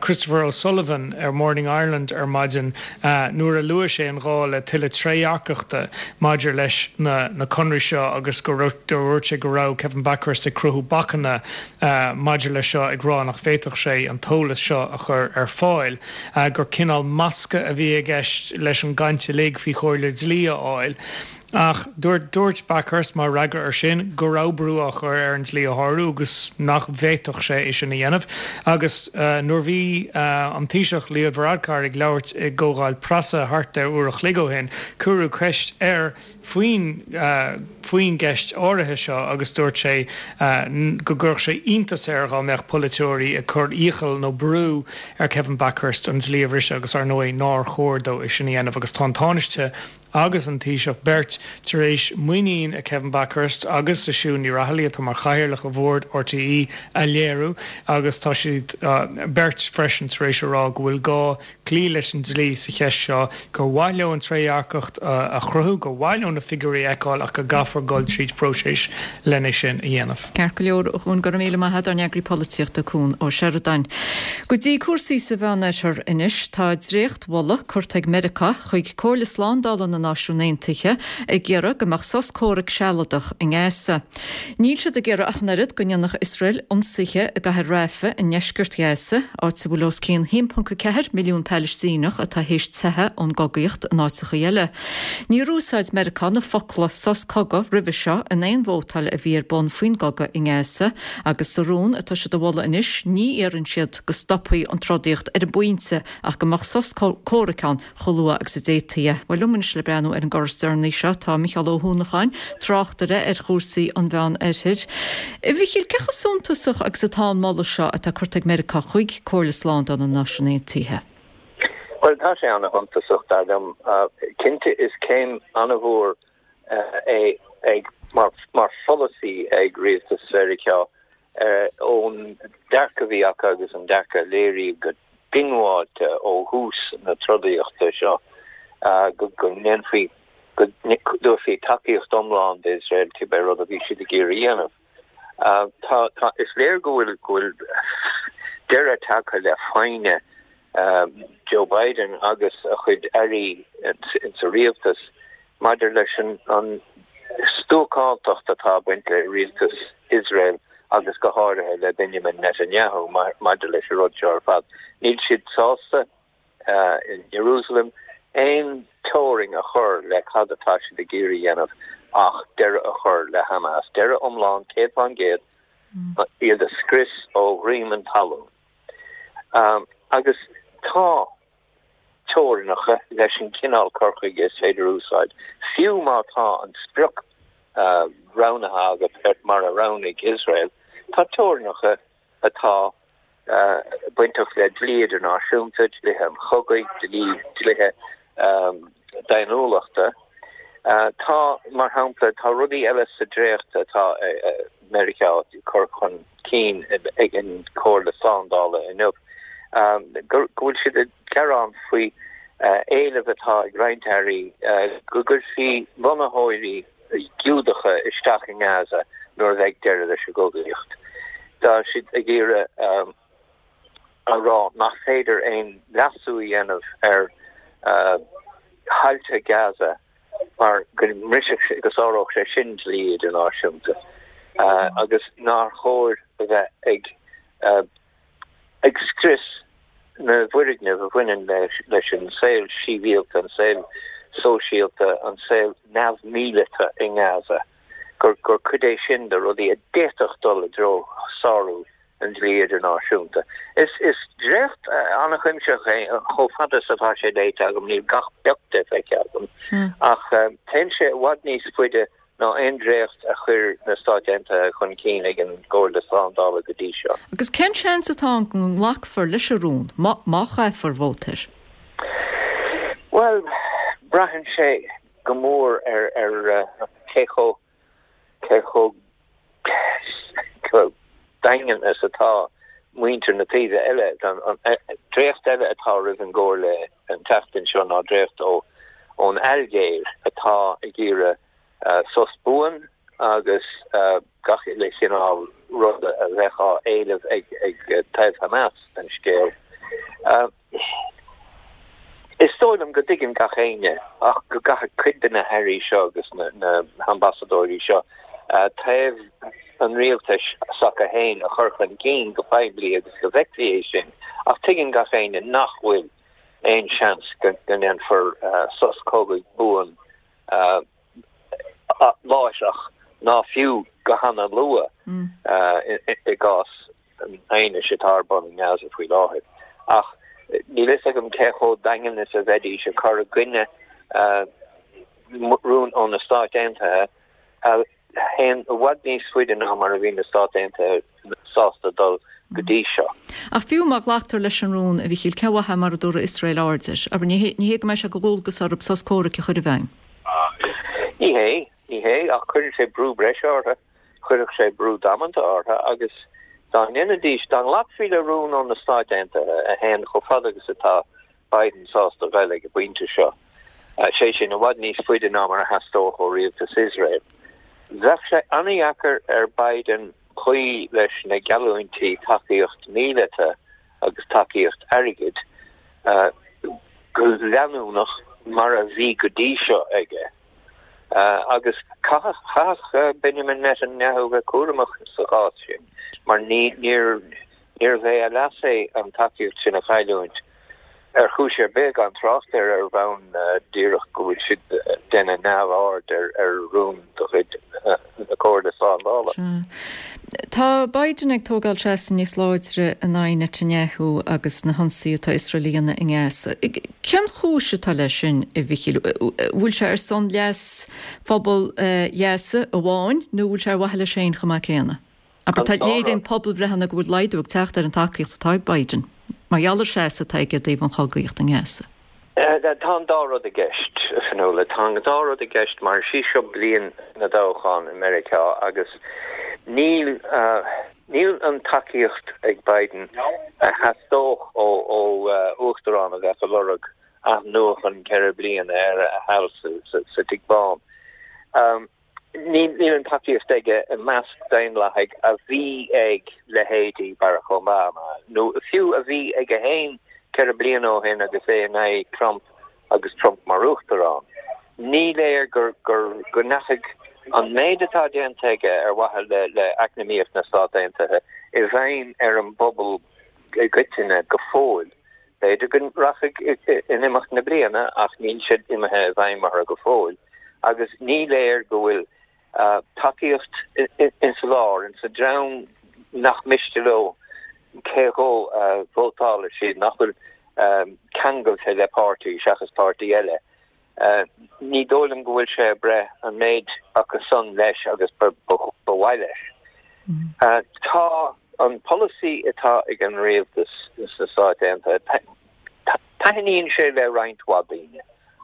Christopher O'Sullivan ar Morning Ireland ar maidin nuair a luaigh sé an gá le tuilleadh trédhearcachta maidir leis na conarthaí seo agus go dúirt sé go raibh Kevin Bakhurst ag cruthú bacanna maidir leis seo ag rá nach bhféadfadh sé an t-eolas seo a chur ar fáil, gur cineál masca a bhí i gceist leis an gcaint uilig faoi chomhairle dlí a fháil. Ach dúirt dúirt Bakhurst mar fhreagra air sin go raibh brú á chur air an dlí a shárú agus nach bhféadfadh sé é sin a dhéanamh. Agus nuair bhí an Taoiseach Leo Varadkar ag labhairt i gcomhdháil preasa thart ar uair a chloig ó shin, cuireadh ceist air faoin faoin gceist áirithe seo agus dúirt sé go gcuirfeadh sé iontas air dhá mbeadh polaiteoirí ag cur iachall nó brú ar Kevin Bakhurst an dlí a bhriseadh agus ar ndóigh nár chóir dó é sin a dhéanamh agus tá an Tánaiste agus an Taoiseach beirt tar éis muinín i Kevin Bakhurst agus i Siún Ní Raghallaigh atá mar chathaoirleach ar bhord RTÉ a léiriú agus tá siad beirt freisin tar éis a rá go bhfuil gá cloí leis an dlí sa cheist seo, gur mhaith leo an trédhearcacht a chruthú, gur mhaith leo na figiúirí a fheiceáil ach go gcaithfear dul tríd próiseas lena sin a dhéanamh. Ceart go leor, a Chuan, go raibh míle maith agat, ár n-eagraí polaitíochta, Cuan Ó Seireadáin. Go dtí cúrsaí sa Mheánoirthear anois. Tá dréacht-mholadh curtha ag Meiriceá chuig Comhairle Slándála na Náisiún Aontaithe ag iarraidh go mbeadh sos comhraic sealadach i nGaza. Níl siad ag iarraidh ach an oiread go ndéanfadh Iosrael ionsaithe i gcathair Rafah i ndeisceart Ghaza, áit a bhfuil os cionn 1.4 milliún Palaistíneach atá théis teitheadh ón gcogaíocht in áiteacha eile. Níor úsáid Meiriceá na focla 'sos cogaidh' roimhe seo in aon vótáil a bhí ar bun faoin gcogadh i nGaza agus sa rún atá siad a mholadh anois ní iarrann siad go stopfaí an trodaíocht ar an bpointe ach go mbeadh sos comhraic ann chomh luath agus a d'fhéadfaí é. Bhuel, liom anois le breathnú ar an gcor is deireanaí seo tá Micheál Ó hUanacháin, tráchtaire ar chúrsaí an Mheán Oirthir. A Mhichíl, cé chomh suntasach agus atá an moladh seo atá curtha ag Meiriceá chuig Comhairle Slándála na Náisiún Aontaithe? Bhuel, tá sé ana-shuntasach, dar liom. Cinnte, is céim ana-mhór é ag, mar, mar pholasaí ag rialtas Mheiriceá ón dearcadh a bhí acu agus an dearcadh a léiríodh go diongbháilte ó thús na trodaíochta seo go ndéanfaí, go dtabharfaí tacaíocht iomlán d'Iosrael cibé rud a bhí siad ag iarraidh a dhéanamh. Tá, tá, is léir go bhfuil, go bhfuil deireadh tagtha le foighne Joe Biden agus a chuid airí insa rialtas maidir leis an stuacántacht atá ag baint le rialtas Iosrael agus go háirithe le Benjamin Netanyahu maidir leis an rud seo ar fad. Níl siad sásta in Jerusalem aon teorainn a chur le cad atá siad ag iarraidh a dhéanamh ach deireadh a chur le Hamas, deireadh iomlán, 100%, iad a scrios ó dhroim an talún. Agus tá. teorainneacha leis an chineál cur chuige is féidir a úsáid, fiú má tá an sprioc roghnaithe agat mar a roghnaigh Iosrael, tá teorainneacha atá. bainteach le dlí idirnáisiúnta, dlíthe an chogaidh, dlí, dlíthe daonnúlachta. Tá, mar shampla, tá rudaí eile sa dréacht atá Meiriceá ag cur chun cinn ag an Chomhairle Slándála inniu, go bhfuil siad ag gearán faoi éileamh atá ag roinnt airí go gcuirfí lonnaitheoirí Giúdacha isteach i nGaza nuair a bheidh deireadh leis an gcogaíocht. Tá siad ag iarraidh a rá nach féidir aon leasú a dhéanamh ar thailte Gaza mar go mbrisfeadh sé, go sáródh sé sin dlí idirnáisiúnta agus nár chóir a bheith ag ag scrios na bhfoirgneamh a bhaineann leis an saol sibhialta, an saol sóisialta, an saol neamh-mhíleata i nGaza, gur cuid é sin de rudaí a d'fhéadfadh dul i dtreo sárú an dlí idirnáisiúnta. Is dréacht an-chuimsitheach é, chomh fada is atá sé léite agam, níl gach pioc de feicthe agam, ach téann sé i bhfad níos faide ná aon dréacht a chuir na Stáit Aontaithe chun cinn ag an gComhairle Slándála go dtí seo. Agus cén seans atá ann go nglacfar leis an rún, má chaithfear vóta air? Bhuel, braitheann sé go mór ar cé chomh cé chomh daingean is atá muintir na taoibhe eile. An dréacht eile atá roimh an gComhairle an tseachtain seo ná dréacht ón Ailgéir atá ag iarraidh sos buan agus gach uile chineál ruda a bheadh á éileamh ag taobh Hamas den scéal. Is dóigh liom go dtuigeann gach éinne ach go gcaithfidh cuid de na hairí seo agus na hambasadóirí seo taobh an rialtais s'acu féin a chur chun cinn go poiblí agus go bhfeicfí é sin ach tuigeann gach éinne nach bhfuil aon seans go ndéanfar sos cogaidh buan láithreach ná fiú go hana-luath i gcás an aighnis atá ar bun i nGaza faoi láthair. Ach níl fhios agam cé chomh daingean is a bheidís ag cur i gcoinne rún ó na Stáit Aontaithe a théann i bhfad níos faide ná mar a bhí na Stáit Aontaithe sásta dul go dtí seo. Ach fiú má ghlactar leis an rún, a Mhichíl, cén mhaith é mura dtabharfaidh Iosrael aird air? Abair, ní hé go mbeidh sé de dhualgas orthu sos comhraic a chur i bhfeidhm. Ní hé, ní hé, ach cuireann sé brú breise orthu. Chuirfeadh sé brú damanta orthu agus dá ndéanfaidís, dá nglacfaí le rún ó na Stáit Aontaithe a théann chomh fada agus atá Biden sásta dul ag an bpointe seo, sé sin, i bhfad níos faide ná mar a theastódh ó rialtas Iosrael, bheadh sé an-dheacair ar Biden cloí leis na geallúintí tacaíocht mhíleata agus tacaíocht airgid go leanúnach mar a bhí go dtí seo aige. Agus chaithfeadh Benjamin Netanyahu bheith cúramach sa chás sin mar níorbh é a leas é an tacaíocht sin a chailliúint ar chúis ar bith, gan trácht ar ar bhonn díreach go bhfuil siad ag déanamh neamhaird ar rún de chuid na Comhairle Slándála. Tá Biden ag tógáil seasamh níos láidre in aghaidh Netanyahu agus na hionsaithe atá Iosrael a dhéanamh i nGaza. Cén chúis atá leis sin, a Mhichíl? Bhfuil sé ar son leas phobal Ghaza amháin nó bhfuil sé ar mhaithe leis féin chomh maith céanna? Abair, tá, léiríonn pobalbhreitheanna go bhfuil laghdú ag teacht ar an tacaíocht atá ag Biden mar gheall ar seasamh atá aige i dtaobh an chogaíocht i nGaza. Tá an dá rud i gceist, a Fionnuala. Tá an dá rud i gceist mar is í seo bliain na dtoghchán i Meiriceá agus níl níl an tacaíocht ag Biden a theastódh ó uachtarán a bheadh ag lorg athnuachan 4 bliana ar a sheal sa Tigh Bán. Níl an tacaíocht aige i measc Daonlathaigh a bhí ag leithéidí Barack Obama, nó fiú a bhí aige féin 4 bliana ó shin agus é in aghaidh Trump agus Trump mar uachtarán. Ní léir go ndeachaigh an méid atá déanta aige ar mhaithe le eacnamaíocht na Stát Aontaithe i bhfeidhm ar an bpobal i gcoitinne go fóill. B'fhéidir go rachaidh in imeacht na bliana ach níl sé imithe i bhfeidhm orthu go fóill agus ní léir go bhfuil tacaíocht insa lár, insa dream nach miste leo cé dhó a vótálfaidh siad, nach bhfuil ceangailte le páirtí seachas páirtí eile. Ní dóigh liom go bhfuil sé ag breith an méid acu san leis agus ba mhaith leis. Tá. An polasaí atá ag an rialtas sna Stáit Aontaithe, taitníonn sé le roinnt mhaith daoine,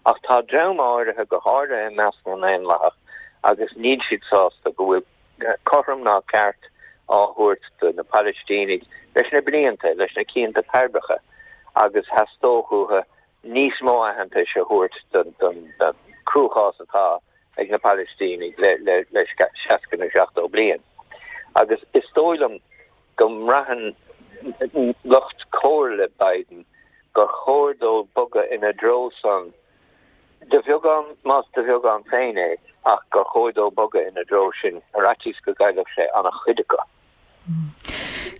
ach tá dream áirithe, go háirithe i measc na nDaonlathach, agus níl siad sásta go bhfuil cothrom ná ceart á thabhairt do na Palaistínigh leis na blianta, leis na cianta peirbreacha, agus theastódh uathu níos mó aitheantais a thabhairt don cruachás atá ag na Palaistínigh le 60 nó 70 bliain. Agus is dóigh liom go mbraitheann lucht comhairle Biden gur chóir dó bogadh ina dtreo san, de bheagán, más de bheagán féin é, ach gur chóir dó bogadh ina dtreo sin ar fhaitíos go gcaillfeadh sé an-chuid acu.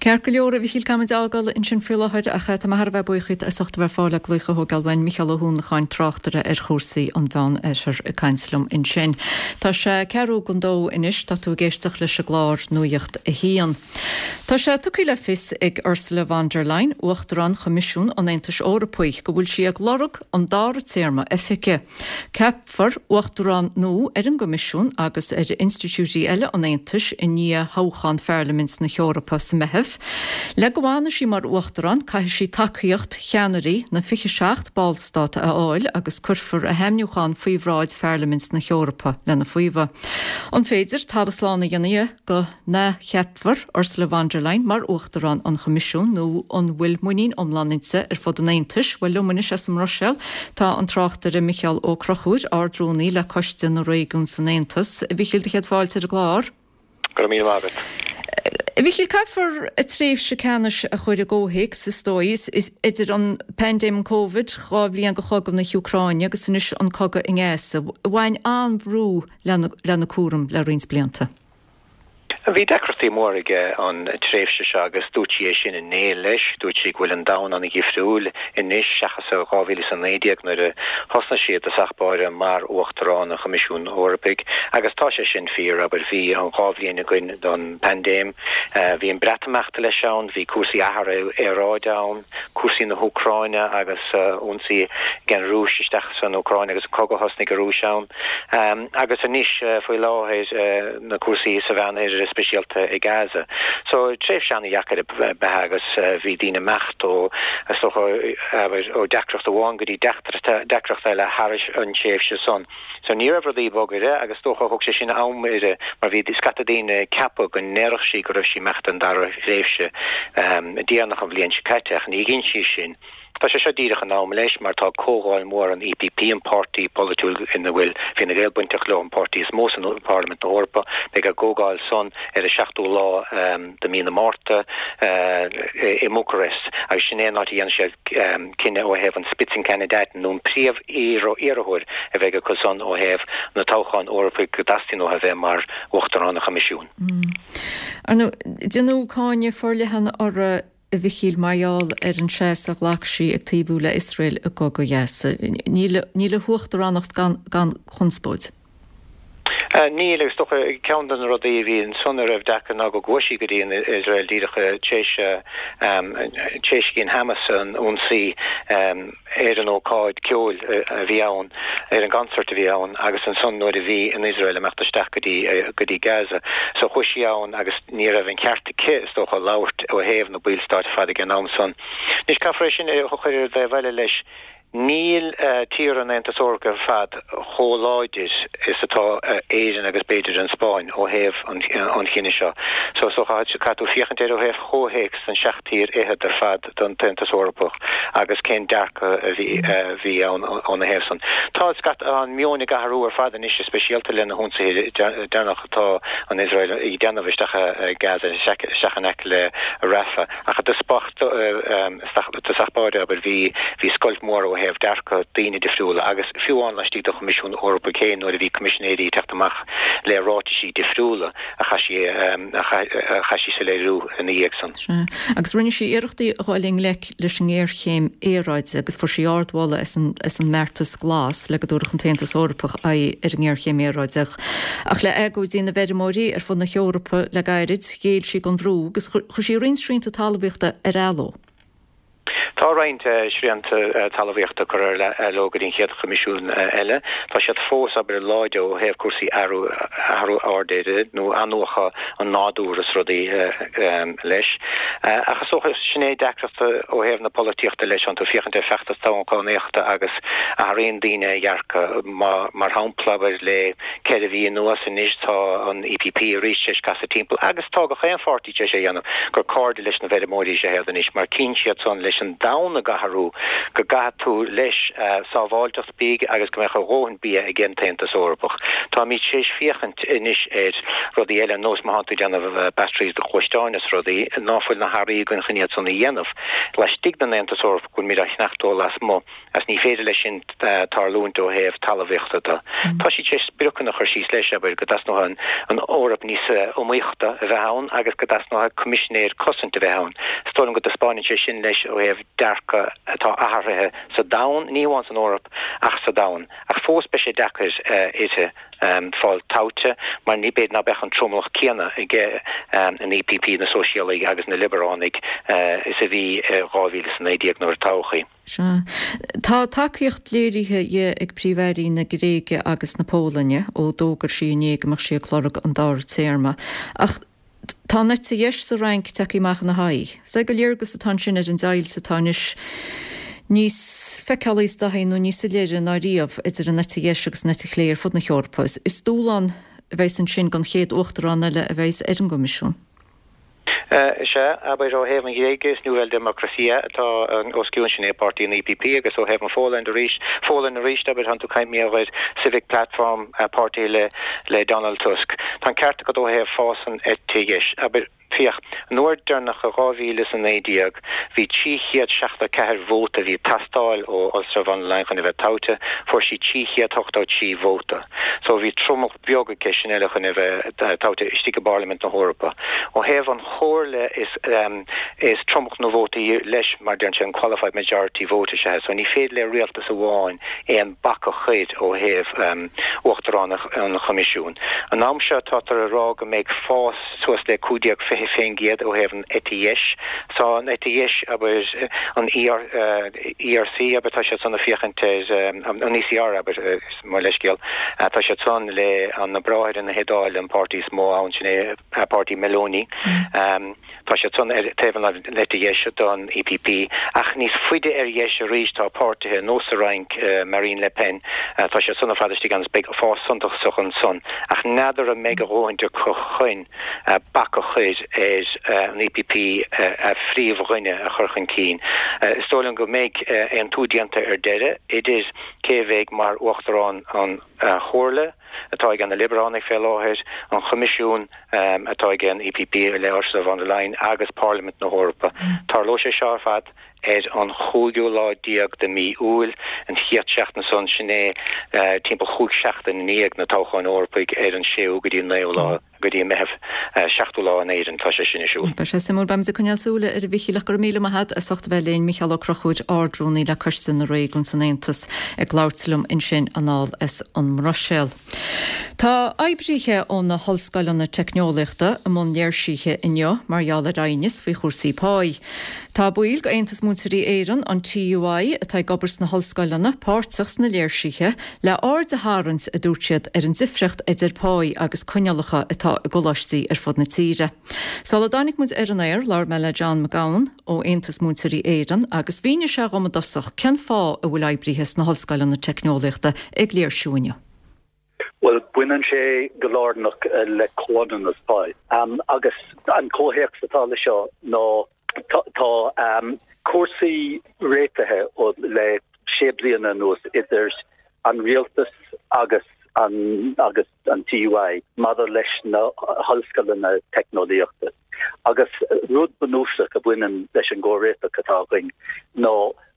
Ceart go leor, a Mhichíl, caithfimid a fhágáil ansin faoi láthair ach tá mé thar a bheith buíoch díot as ucht a bheith ar fáil le glaoch a thógáil uainn. Micheál Ó hUanacháin, tráchtaire ar chúrsaí an Mheán Oirthir ag caint liom ansin. Tá sé ceathrú don dó anois, tá tú ag éisteacht leis an gclár Nuacht a hAon. Tá sé tugtha le fios ag Ursula von der Leyen, Uachtarán Choimisiún an Aontais Eorpaigh, go bhfuil sí ag lorg an dara téarma oifige. Ceapfar Uachtarán nua ar an gCoimisiún agus ar institiúidí eile an Aontais i ndiaidh thoghchán Pharlaimint na hEorpa sa Meitheamh. Le go bhfanfaidh sí mar Uachtarán, caithfidh sí tacaíocht cheannairí na 27 ballstát a fháil agus cuirfear a hainmniúchán faoi bhráid Pharlaimint na hEorpa lena faomhadh. An féidir talamh slán a dhéanamh dhe go n-athcheapfar Ursula von der Leyen mar Uachtarán an Choimisiúin nó an bhfuil muinín iomlán inti ar fud an Aontais? Bhuel, liom anois as an mBruiséil tá an tráchtaire Micheál Ó Conchúir, Ard-Rúnaí le Coiste na Réigiún san Aontas. A Mhichíl, do chéad fáilte ar an gclár. Go raibh míle maith agat. A Mhichíl, caithfear a tréimhse ceannais a chur i gcomhthéacs, is dóigh, idir an paindéim an Covid, 2 bhliain de chogadh na hÚcráine agus anois an cogadh i nGaza. Bhain an-bhrú lena cúram le roinnt blianta. Bhí deacrachtaí móra aige an tréimhse seo agus dúirt sí é sin inné leis. Dúirt sí go bhfuil an domhan an-dhifriúil anois seachas i 2019 nuair a thosnaigh sí i dtosach báire mar Uachtarán an Choimisiúin Eorpaigh agus tá sé sin fíor, abair. Bhí an 2 bhliain againn don bpaindéim, bhí an Breatimeacht leis ann, bhí cúrsaí athrú aeráide ann, cúrsaí na hÚcráine agus ionsaí ag an Rúis isteach san Úcráin agus an cogadh a thosnaigh an Rúis ann. Agus anois faoi láthair na cúrsaí sa Mheánoirthear, speisialta i Gaza. So tréimhse an-dheacair ab ea agus bhí daoine ag imeacht ó, is dócha, abair, ó deacracht amháin go dtí deacracht eile thar an tréimhse san. So ní raibh rudaí bog uirthi agus is dócha thóg sé sin am uirthi mar bhí scata daoine ag ceapadh go ndéarfadh sí go raibh sí ag imeacht don dara thréimhse déanach an bhliain seo caite ach ní dhein sí sin. Tá sé seo díreach in am leis mar tá comhdháil mhór an EPP, an páirtí polaitiúil ina bhfuil Fine Gael bainteach leo, an páirtí is mó san Pharlaimint na hEorpa. Beidh a gcomhdháil san ar an seachtú lá de mí na Márta i mBucarest agus sin é an áit a dhéanfaidh siad cinneadh ó thaobh an Spitzenkandidaten nó an príomh-iarrthóir a bheidh acu san ó thaobh na toghcháin Eorpaigh go dteastaíonn uathu a bheith mar Uachtarán an Choimisiúin. Ar ndóigh, déanadh cáineadh forleathan uirthi a Mhichíl, mar gheall ar an seasamh a ghlac sí ag taobhú le Iosrael i gcogadh Ghaza. Níl níl a huachtaránacht gan gan chonspóid. Níl, agus is dócha ceann de na rudaí a bhí ansan a raibh deacair ná go gcuaigh sí go dtí an Iosrael díreach tar éis a dhein Hamas an ionsaí ar an ócáid ceoil a bhí ann, ar an gconcert a bhí ann agus ansan nuair a bhí an Iosrael ag imeacht isteach go dtí, go dtí Gaza. So chuaigh sí ann agus ní raibh an ceart aici, is dócha, labhairt ó thaobh na ballstáit ar fad ag an am san. Anois caithfear é sin a chur ar an dtaobh eile leis. Níl tíortha an Aontais Eorpaigh ar fad chomh láidir is atá Éirinn agus b'fhéidir an Spáinn ó thaobh an chinnidh seo. So is dócha caithfidh tú féachaint air ó thaobh chomhthéacs den seacht tír fhichead ar fad den tAontas Eorpach agus cén dearcadh a bhí ann óna thaobh san. Tá an meon ag athrú ar fad anois, speisialta le na hionsaithe deireanach atá an Iosrael ag déanamh isteach i Gaza, isteach in aice le Rafah. Ach i dtosach báire, abair, bhí scoilt mhór ó thaobh dearcadh daoine difriúla agus fiú amháin laistigh den Choimisiún Eorpaigh féin nuair a bhí coimisinéirí ag teacht amach le ráitisí difriúla a chaith sí a chaith sí soiléiriú ina dhiaidh san. Sea. Agus rinne sí iarrachtaí a dhul i ngleic leis an ngéarchéim aeráide agus fuair sí ardmholadh as an as an mbeartas glas le go dtabharfadh an tAontas Eorpach aghaidh ar an ngéarchéim aeráide. Ach le agóidí na bhfeirmeoirí ar fud na hEorpa le gairid, ghéill sí don bhrú agus chuir sí roinnt srianta talmhaíochta ar athló. Tá roinnt srianta talmhaíochta curtha leo go dtí an chéad Choimisiún eile. Tá siad fós, abair, láidir ó thaobh cúrsaí athrú aeráide nó athnuachan an nádúir is rudaí leis. Ach is dócha, sin é deacracht ó thaobh na polaitíochta leis, tánn tú féachaint ar feachtas toghchánaíochta agus athraíonn daoine a dhearcadh. Mar shampla, abair, le 4 mhí anuas anois tá an EPP arís tar éis casadh timpeall agus tá gach aon pháirtí tar éis é a dhéanamh, gur cairde leis na bhfeirmeoirí is ea iad anois mar tchíonn siad san leis an domhan ag athrú go gcaithfidh tú leis sábháilteacht bídh agus go mbeadh a dhóthain bia ag an tAontas Eorpach. Táimid tar éis féachaint anois ar rudaí eile ar nós má thánn tú ag déanamh batteries do ghluaisteáin is rudaí ná fuil na hearraí againn chun iad san a dhéanamh laistigh den Aontas Eorpach go bhfuilimid á cheannacht ó lasmuigh. Agus ní féidir leis sin tarlúint ó thaobh talmhaíochta de. Tá siad tar éis spriocanna a chur síos leis, abair, go dteasnóidh an Eoraip níos iomaíochta a bheith ann agus go dteasnóidh coimisinéir cosaint a bheith ann. Is dóigh liom go dtaispeáineann sé sin leis ó thaobh dearcadh atá athraithe sa domhan, ní hamháin san Eoraip ach sa domhan. Ach fós beidh sé deacair uirthi. fáil toghte mar ní b'fhéidir ná beadh an tromlach céanna ag an EPP, na Sóisialaigh agus na Liobaránaigh is a bhí i 2019 nuair a toghadh í. Sea. Tá tacaíocht léirithe di ag Príomh-Airí na Gréige agus na Polainne ó d'fhógair sí inné go mbeadh sí ag lorg an dara téarma. Ach tá an eite dheis sa Fhrainc tagtha amach ina haghaidh. Is é gur léargas atá ansin ar an deighilt atá anois níos feiceálaí is dóichí nó níos soiléire ná riamh idir an eite dheis agus an eite chlé ar fud na hEorpa. Is dúshlán a bheas ansin don chéad uachtarán eile a bheas ar an gCoimisiún. Is ea, abair, ó thaobh an Ghréige, is Nuova Democrazia atá os cionn, sin é páirtí an EPP, agus ó thaobh an Pholainn arís, Pholainn arís, abair, tánn tú ag caint mar gheall ar Civic Platform, páirtí le le Donald Tusk. Tá an ceart agat ó thaobh fás an eite dheis. Abair, féach, an uair deireanach i 2019, bhí 374 vóta a bhí ag teastáil ó Ursula von der Leyen chun a bheith toghte, fuair sí 383 vóta. So bhí tromlach beag aici sin eile chun a bheith toghte istigh i bParlaimint na hEorpa. Ó thaobh an Chomhairle is is tromlach na vótaí leis mar deireann sé an qualified majority vote is ea so ní féidir le rialtas amháin aon bac a chur ó thaobh Uachtarán an Choimisiúin. An am seo tátar ag rá go mbeidh fás suas le 15-20% ó thaobh an eite dheis. Tá an eite dheis abair an ERC abair tá siad san ag féachaint ar an ECR abair mo leithscéal tá siad san le na Bráithre na hIodáile an páirtí is mó ann sin é páirtí Meloni. Tá siad san ar taobh an eite dheis don EPP ach níos faide ar dheis arís tá páirtithe nós sa Fhrainc, Marine Le Pen, tá siad san ar fad istigh ann is beidh fás suntasach ansan ach n'fheadar an mbeidh a dhóthaint acu chun bac a chur ar an EPP a phríomhdhuine a chur chun cinn. Is dóigh liom go mbeidh aontú déanta ar deireadh idir cé a bheidh mar Uachtarán an Chomhairle, atá ag na Liobaránaigh fé láthair, an Choimisiún atá ag an EPP le Ursula von der Leyen agus Parlaimint na hEorpa. Tarlóidh sé seo ar fad ar an chúigiú lá déag de mí Iúil, an chéad seachtain san, sin é timpeall chúig seachtain i ndiaidh na toghcháin Eorpaigh ar an séú go dtí an naoú lá. go dtí an Meitheamh, 7ú lá in Éirinn tá sé sin ar siúl. Beidh sé suimiúil. Beimid ag coinneáil súile air a Mhichíl ach go raibh míle maith agat as ucht a bheith linn. Micheál Ó Conchúir, Ard-Rúnaí le Coiste na Réigiún san Aontas ag labhairt liom ansin anall as an mBruiséil. Tá oibrithe ó na hollscoileanna teicneolaíochta i mbun léirsithe inniu mar gheall ar aighneas faoi chúrsaí páí. Tá baill d'Aontas Múinteoirí Éireann, an TUI, atá ag obair sna hollscoileanna, páirteach sna léirsithe, le aird a tharraingt, a dúirt siad, ar an difriocht idir páí agus coinníollacha atá i gcoláistí ar fud na tíre. Sula dtáinig muid ar an aer, labhair mé le John McGowan ó Aontas Múinteoirí Éireann agus mhínigh sé dhom i dtosach cén fáth a bhfuil oibrithe sna hollscoileanna teicneolaíochta ag léirsiú inniu. Bhuel, baineann sé go lárnach le comhionannas pá. Agus an comhthéacs atá le seo ná tá cúrsaí réitithe le sé bliana anuas idir an rialtas agus an agus an TUI maidir leis na hollscoileanna teicneolaíochta. Agus rud bunúsach a bhaineann leis an gcomhréiteach atá againn ná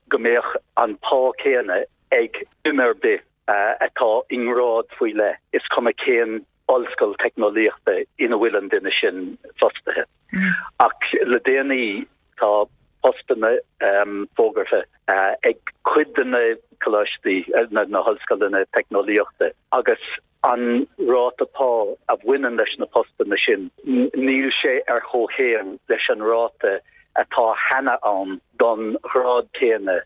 go mbeadh an pá céanna ag duine ar bith atá i ngrád faoi leith, is cuma cén ollscoil teicneolaíochta ina bhfuil an duine sin fostaithe. Ach le déanaí tá postanna fógartha ag cuid de na coláistí, na hollscoileanna teicneolaíochta agus an ráta pá a bhaineann leis na postanna sin, níl sé ar chomhchéim leis an ráta. atá cheana ann don ghrád céanna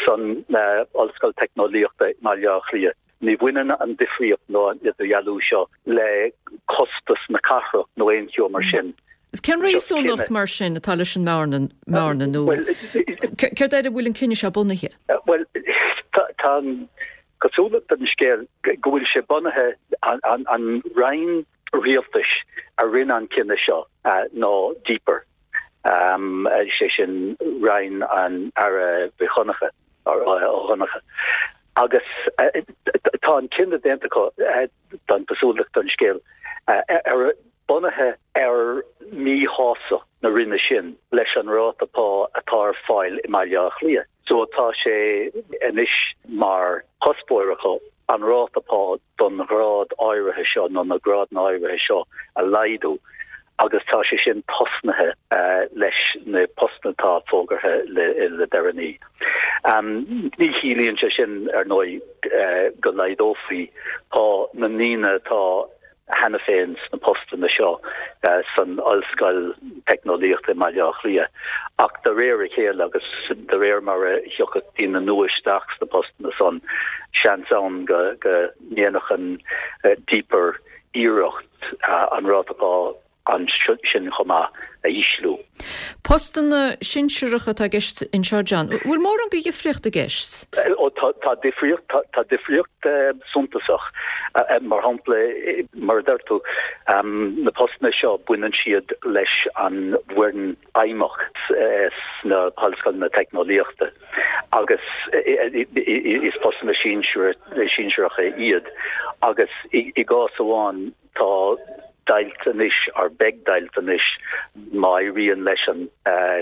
san Ollscoil Teicneolaíochta i mBaile Átha Cliath. Ní bhaineann an difríocht nó an idirdhealú seo le costas na cathrach nó aon cheo mar sin. Cén réasúnacht mar sin atá leis an mbearna nó céard air a bhfuil an cinneadh seo bunaithe? Bhuel, tá an chosúlacht ar an scéal go bhfuil sé bunaithe, an roinn rialtais a rinne an cinneadh seo ná DPER, sé sin roinn an Aire Mhic Dhonncha, Ó Donncha. Agus tá an cinneadh déanta acu, tá an chosúlacht ar an scéal, ar bunaithe ar mhíshástacht na roinne sin leis an ráta pá atá ar fáil i mBaile Átha Cliath. So tá sé anois mar chuspóir acu an ráta pá don ghrád áirithe seo nó na grádanna áirithe seo a laghdú agus tá sé sin tosnaithe leis na postanna atá fógartha le deireanaí. Ní chiallaíonn sé sin, ar ndóigh, go laghdófaí pá na ndaoine atá cheana féin sna postanna seo san Ollscoil Teicneolaíochta i mBaile Átha Cliath ach de réir a chéile agus de réir mar a thiocfadh daoine nua isteach sna postanna san, seans ann go ndéanfadh an DPER iarracht an ráta pá ansin chomh maith a ísliú. Postanna sinsearacha atá i gceist anseo, John. Bhfuil mórán de dhifríocht i gceist? Ó tá difríocht, tá difríocht suntasach. Mar shampla, mar a deir tú, na postanna seo baineann siad leis an bhfoireann fheidhmeach sna hollscoileanna teicneolaíochta agus is postanna sinsearacha iad agus i gcás amháin Tá deighilt anois, or beidh deighilt anois, má éiríonn leis an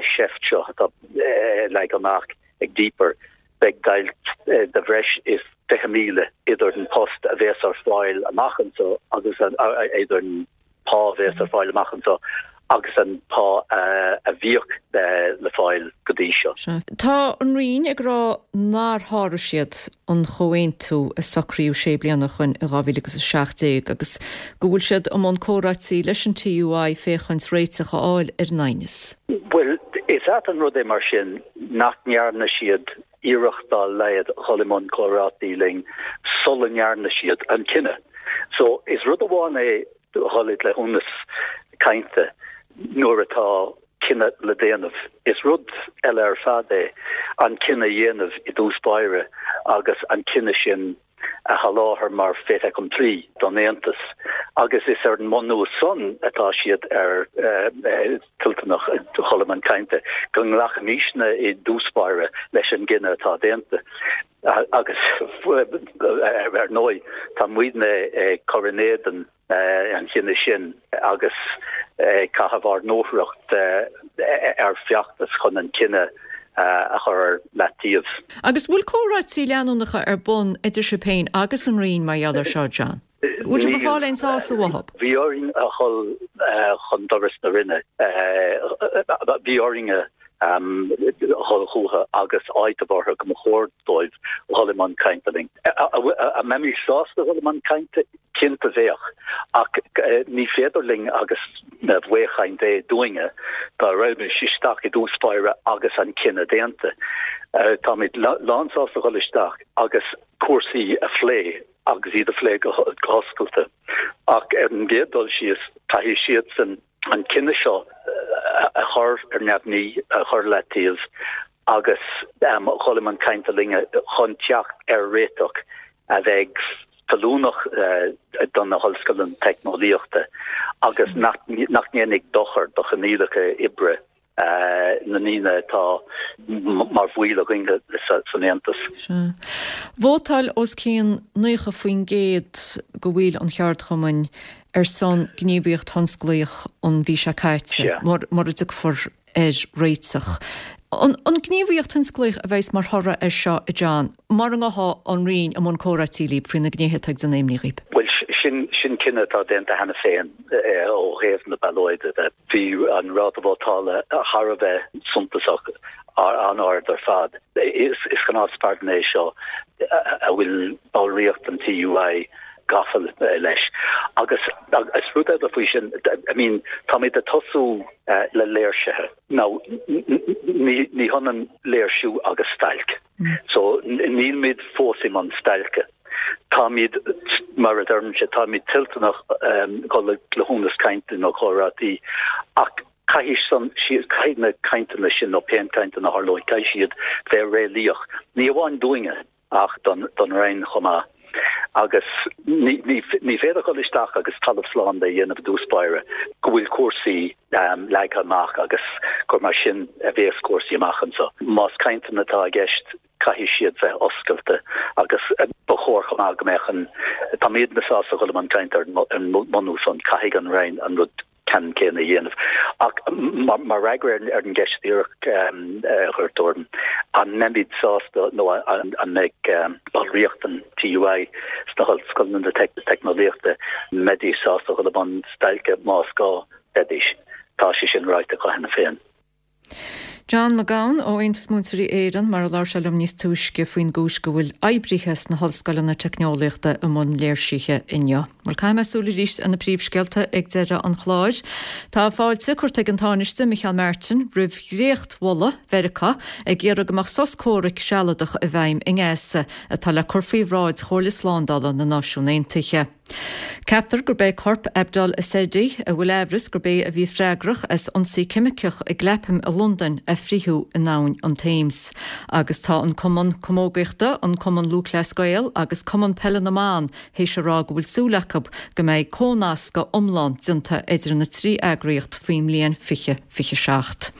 seift seo atá leagtha amach ag DPER, beidh deighilt de bhreis is 20,000 idir an post a bhéas ar fáil amach anseo agus an, idir an pá a bhéas ar fáil amach anseo agus an pá a bhíodh le fáil go dtí seo. Tá an Roinn ag rá nár sháraigh siad an chomhaontú a socraíodh sé bliana ó shoin in 2017 agus go bhfuil siad i mbun comhráití leis an TUI féachaint réiteach a fháil ar an aighneas. Bhuel, is ait an rud é mar sin nach ndearna siad iarracht dá laghad dhul i mbun comhráití linn sula ndearna siad an cinneadh. So, is rud amháin é dhul i gcleithiúnas cainte nuair atá cinneadh le déanamh. Is rud eile ar fad é an cinneadh a dhéanamh i dtús báire agus an cinneadh sin a sholáthar mar fait accompli don Aontas agus is ar an mbunús san atá siad ar toilteanach dhul i mbun cainte go nglacfaimisne i dtús báire leis an gcinneadh atá déanta. Agus ar ndóigh tá muidne ag cur in éadan an chinnidh sin agus ag caitheamh ár ndúthracht ar feachtas chun an cinneadh a chur ar leataobh. Agus bhfuil comhráití leanúnacha ar bun idir sibh féin agus an Roinn mar gheall air seo, John? Bhfuil sibh ag fáil aon sásamh uathu? Bhí orainn a dhul chun doras na Roinne. Bhí orainn a dhul chucu agus áiteamh orthu go mba chóir dóibh dhul i mbun cainte linn. An mbeimis sásta dhul i mbun cainte? Cinnte bheadh, ach ní féidir linn agus baothchaint é dúinne dá raghaimis isteach i dtús báire agus an cinneadh déanta. Táimid lánsásta dhul isteach agus cúrsaí a phlé agus iad a phlé go hoscailte ach ar an gcéad dul síos caithfidh siadsan an cinneadh seo a chur ar neamhní, a chur ar leataobh agus dhul i mbun cainte linne chun teacht ar réiteach a bheidh feiliúnach do na hollscoileanna teicneolaíochta agus nach ndéanfaidh dochar do choinníollacha oibre na ndaoine atá mar bhaill againn san Aontas. Sea. Vótáil os cionn 90% de bhaill an cheardchumainn ar son gníomhaíocht thionsclaíoch an mhí seo caite, mura dtiocfar ar réiteach. An gníomhaíocht thionsclaíoch a bheas mar thoradh air seo, a John, mura ngabhfaidh an Roinn i mbun comhráití libh faoi na gnéithe atá ag déanamh imní dhaoib? Bhuel, sin cinneadh atá déanta cheana féin ó thaobh na ballóide de. Bhí an ráta vótála thar a bheith suntasach, an-ard ar fad. Is gnáthspardán é seo a bhfuil ballraíocht an TUI. gafa leis. Agus is rud eile faoi sin, I mean, táimid ag tosú le léirsithe. Now, ní hionann léirsiú agus stailc. So, nílmid fós i mbun stailce. Táimid, mar a deirimse, táimid toilteanach dul le cleithiúnas cainte nó comhráití ach caithfidh san, caithfidh na cainteanna sin nó pé cainteanna a tharlóidh, caithfidh siad bheith réalaíoch, ní amháin dúinne ach don Roinn chomh maith. Agus ní féidir dul isteach agus talamh slán de a dhéanamh i dtús báire go bhfuil cúrsaí leagtha amach agus gur mar sin a bhéas cúrsaí amach anseo. Más cainteanna atá i gceist, caithfidh siad bheith oscailte agus ba chóir chomh maith go mbeadh an, táimidne sásta dhul i mbun cainte ar an mbunús san, caithfidh an Roinn an rud ceannann céanna a dhéanamh. Ach mar fhreagra ar an gceist dhíreach a chuir tú orm, an mbeimid sásta nó an mbeidh ballraíocht an TUI sna hollscoileanna teicneolaíochta, an mbeidís sásta dhul i mbun stailce más gá? Bheidís. Tá sé sin ráite acu cheana féin. John Mac Gabhann ó Aontas Múinteoirí Éireann, mar a labhair sé liom níos túisce faoin gcúis go bhfuil oibrithe sna hollscoileanna teicneolaíochta i mbun léirsithe inniu. Bhuel, caithfidh mé súil arís ar na príomhscéalta ag deireadh an chláir. Tá fáilte curtha ag an Tánaiste Micheál Martin roimh dhréachtmholadh Mheiriceá ag iarraidh go mbeadh sos comhraic sealadach i bhfeidhm i nGaza atá le cur faoi bhráid Chomhairle Slándála na Náisiún Aontaithe. Ceaptar gurb é corp Abdul Ezedi, a bhfuil aimhreas gurb é a bhí freagrach as ionsaí ceimiceach i gClapham i Londain, a fritheadh in abhainn an Thames. Agus tá an Cumann Camógaíochta, an Cumann Lúthchleas Gael agus Cumann Peile na mBan théis a rá go bhfuil súil acu go mbeidh comhnascadh iomlán déanta idir na 3 eagraíocht faoin mbliain 2027.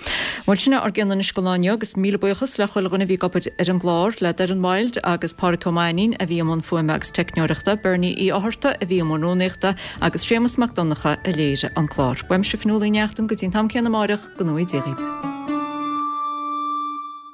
Bhuel, sin é ár gcion anois don lá inniu agus míle buíochas le chuile dhuine a bhí ag obair ar an gclár, le Doireann Wilde agus Pádhraic Ó Mainnín a bhí i mbun fuaime agus teicneoireachta, Bernie Uí Fhátharta a bhí i mbun rúnaíochta agus Séamus Mac Donncha a léirigh an clár. Uaimse Fionnuala Ní Neachtain go dtí an t-am céanna amáireach, go ngnóthaí Dia dhaoibh.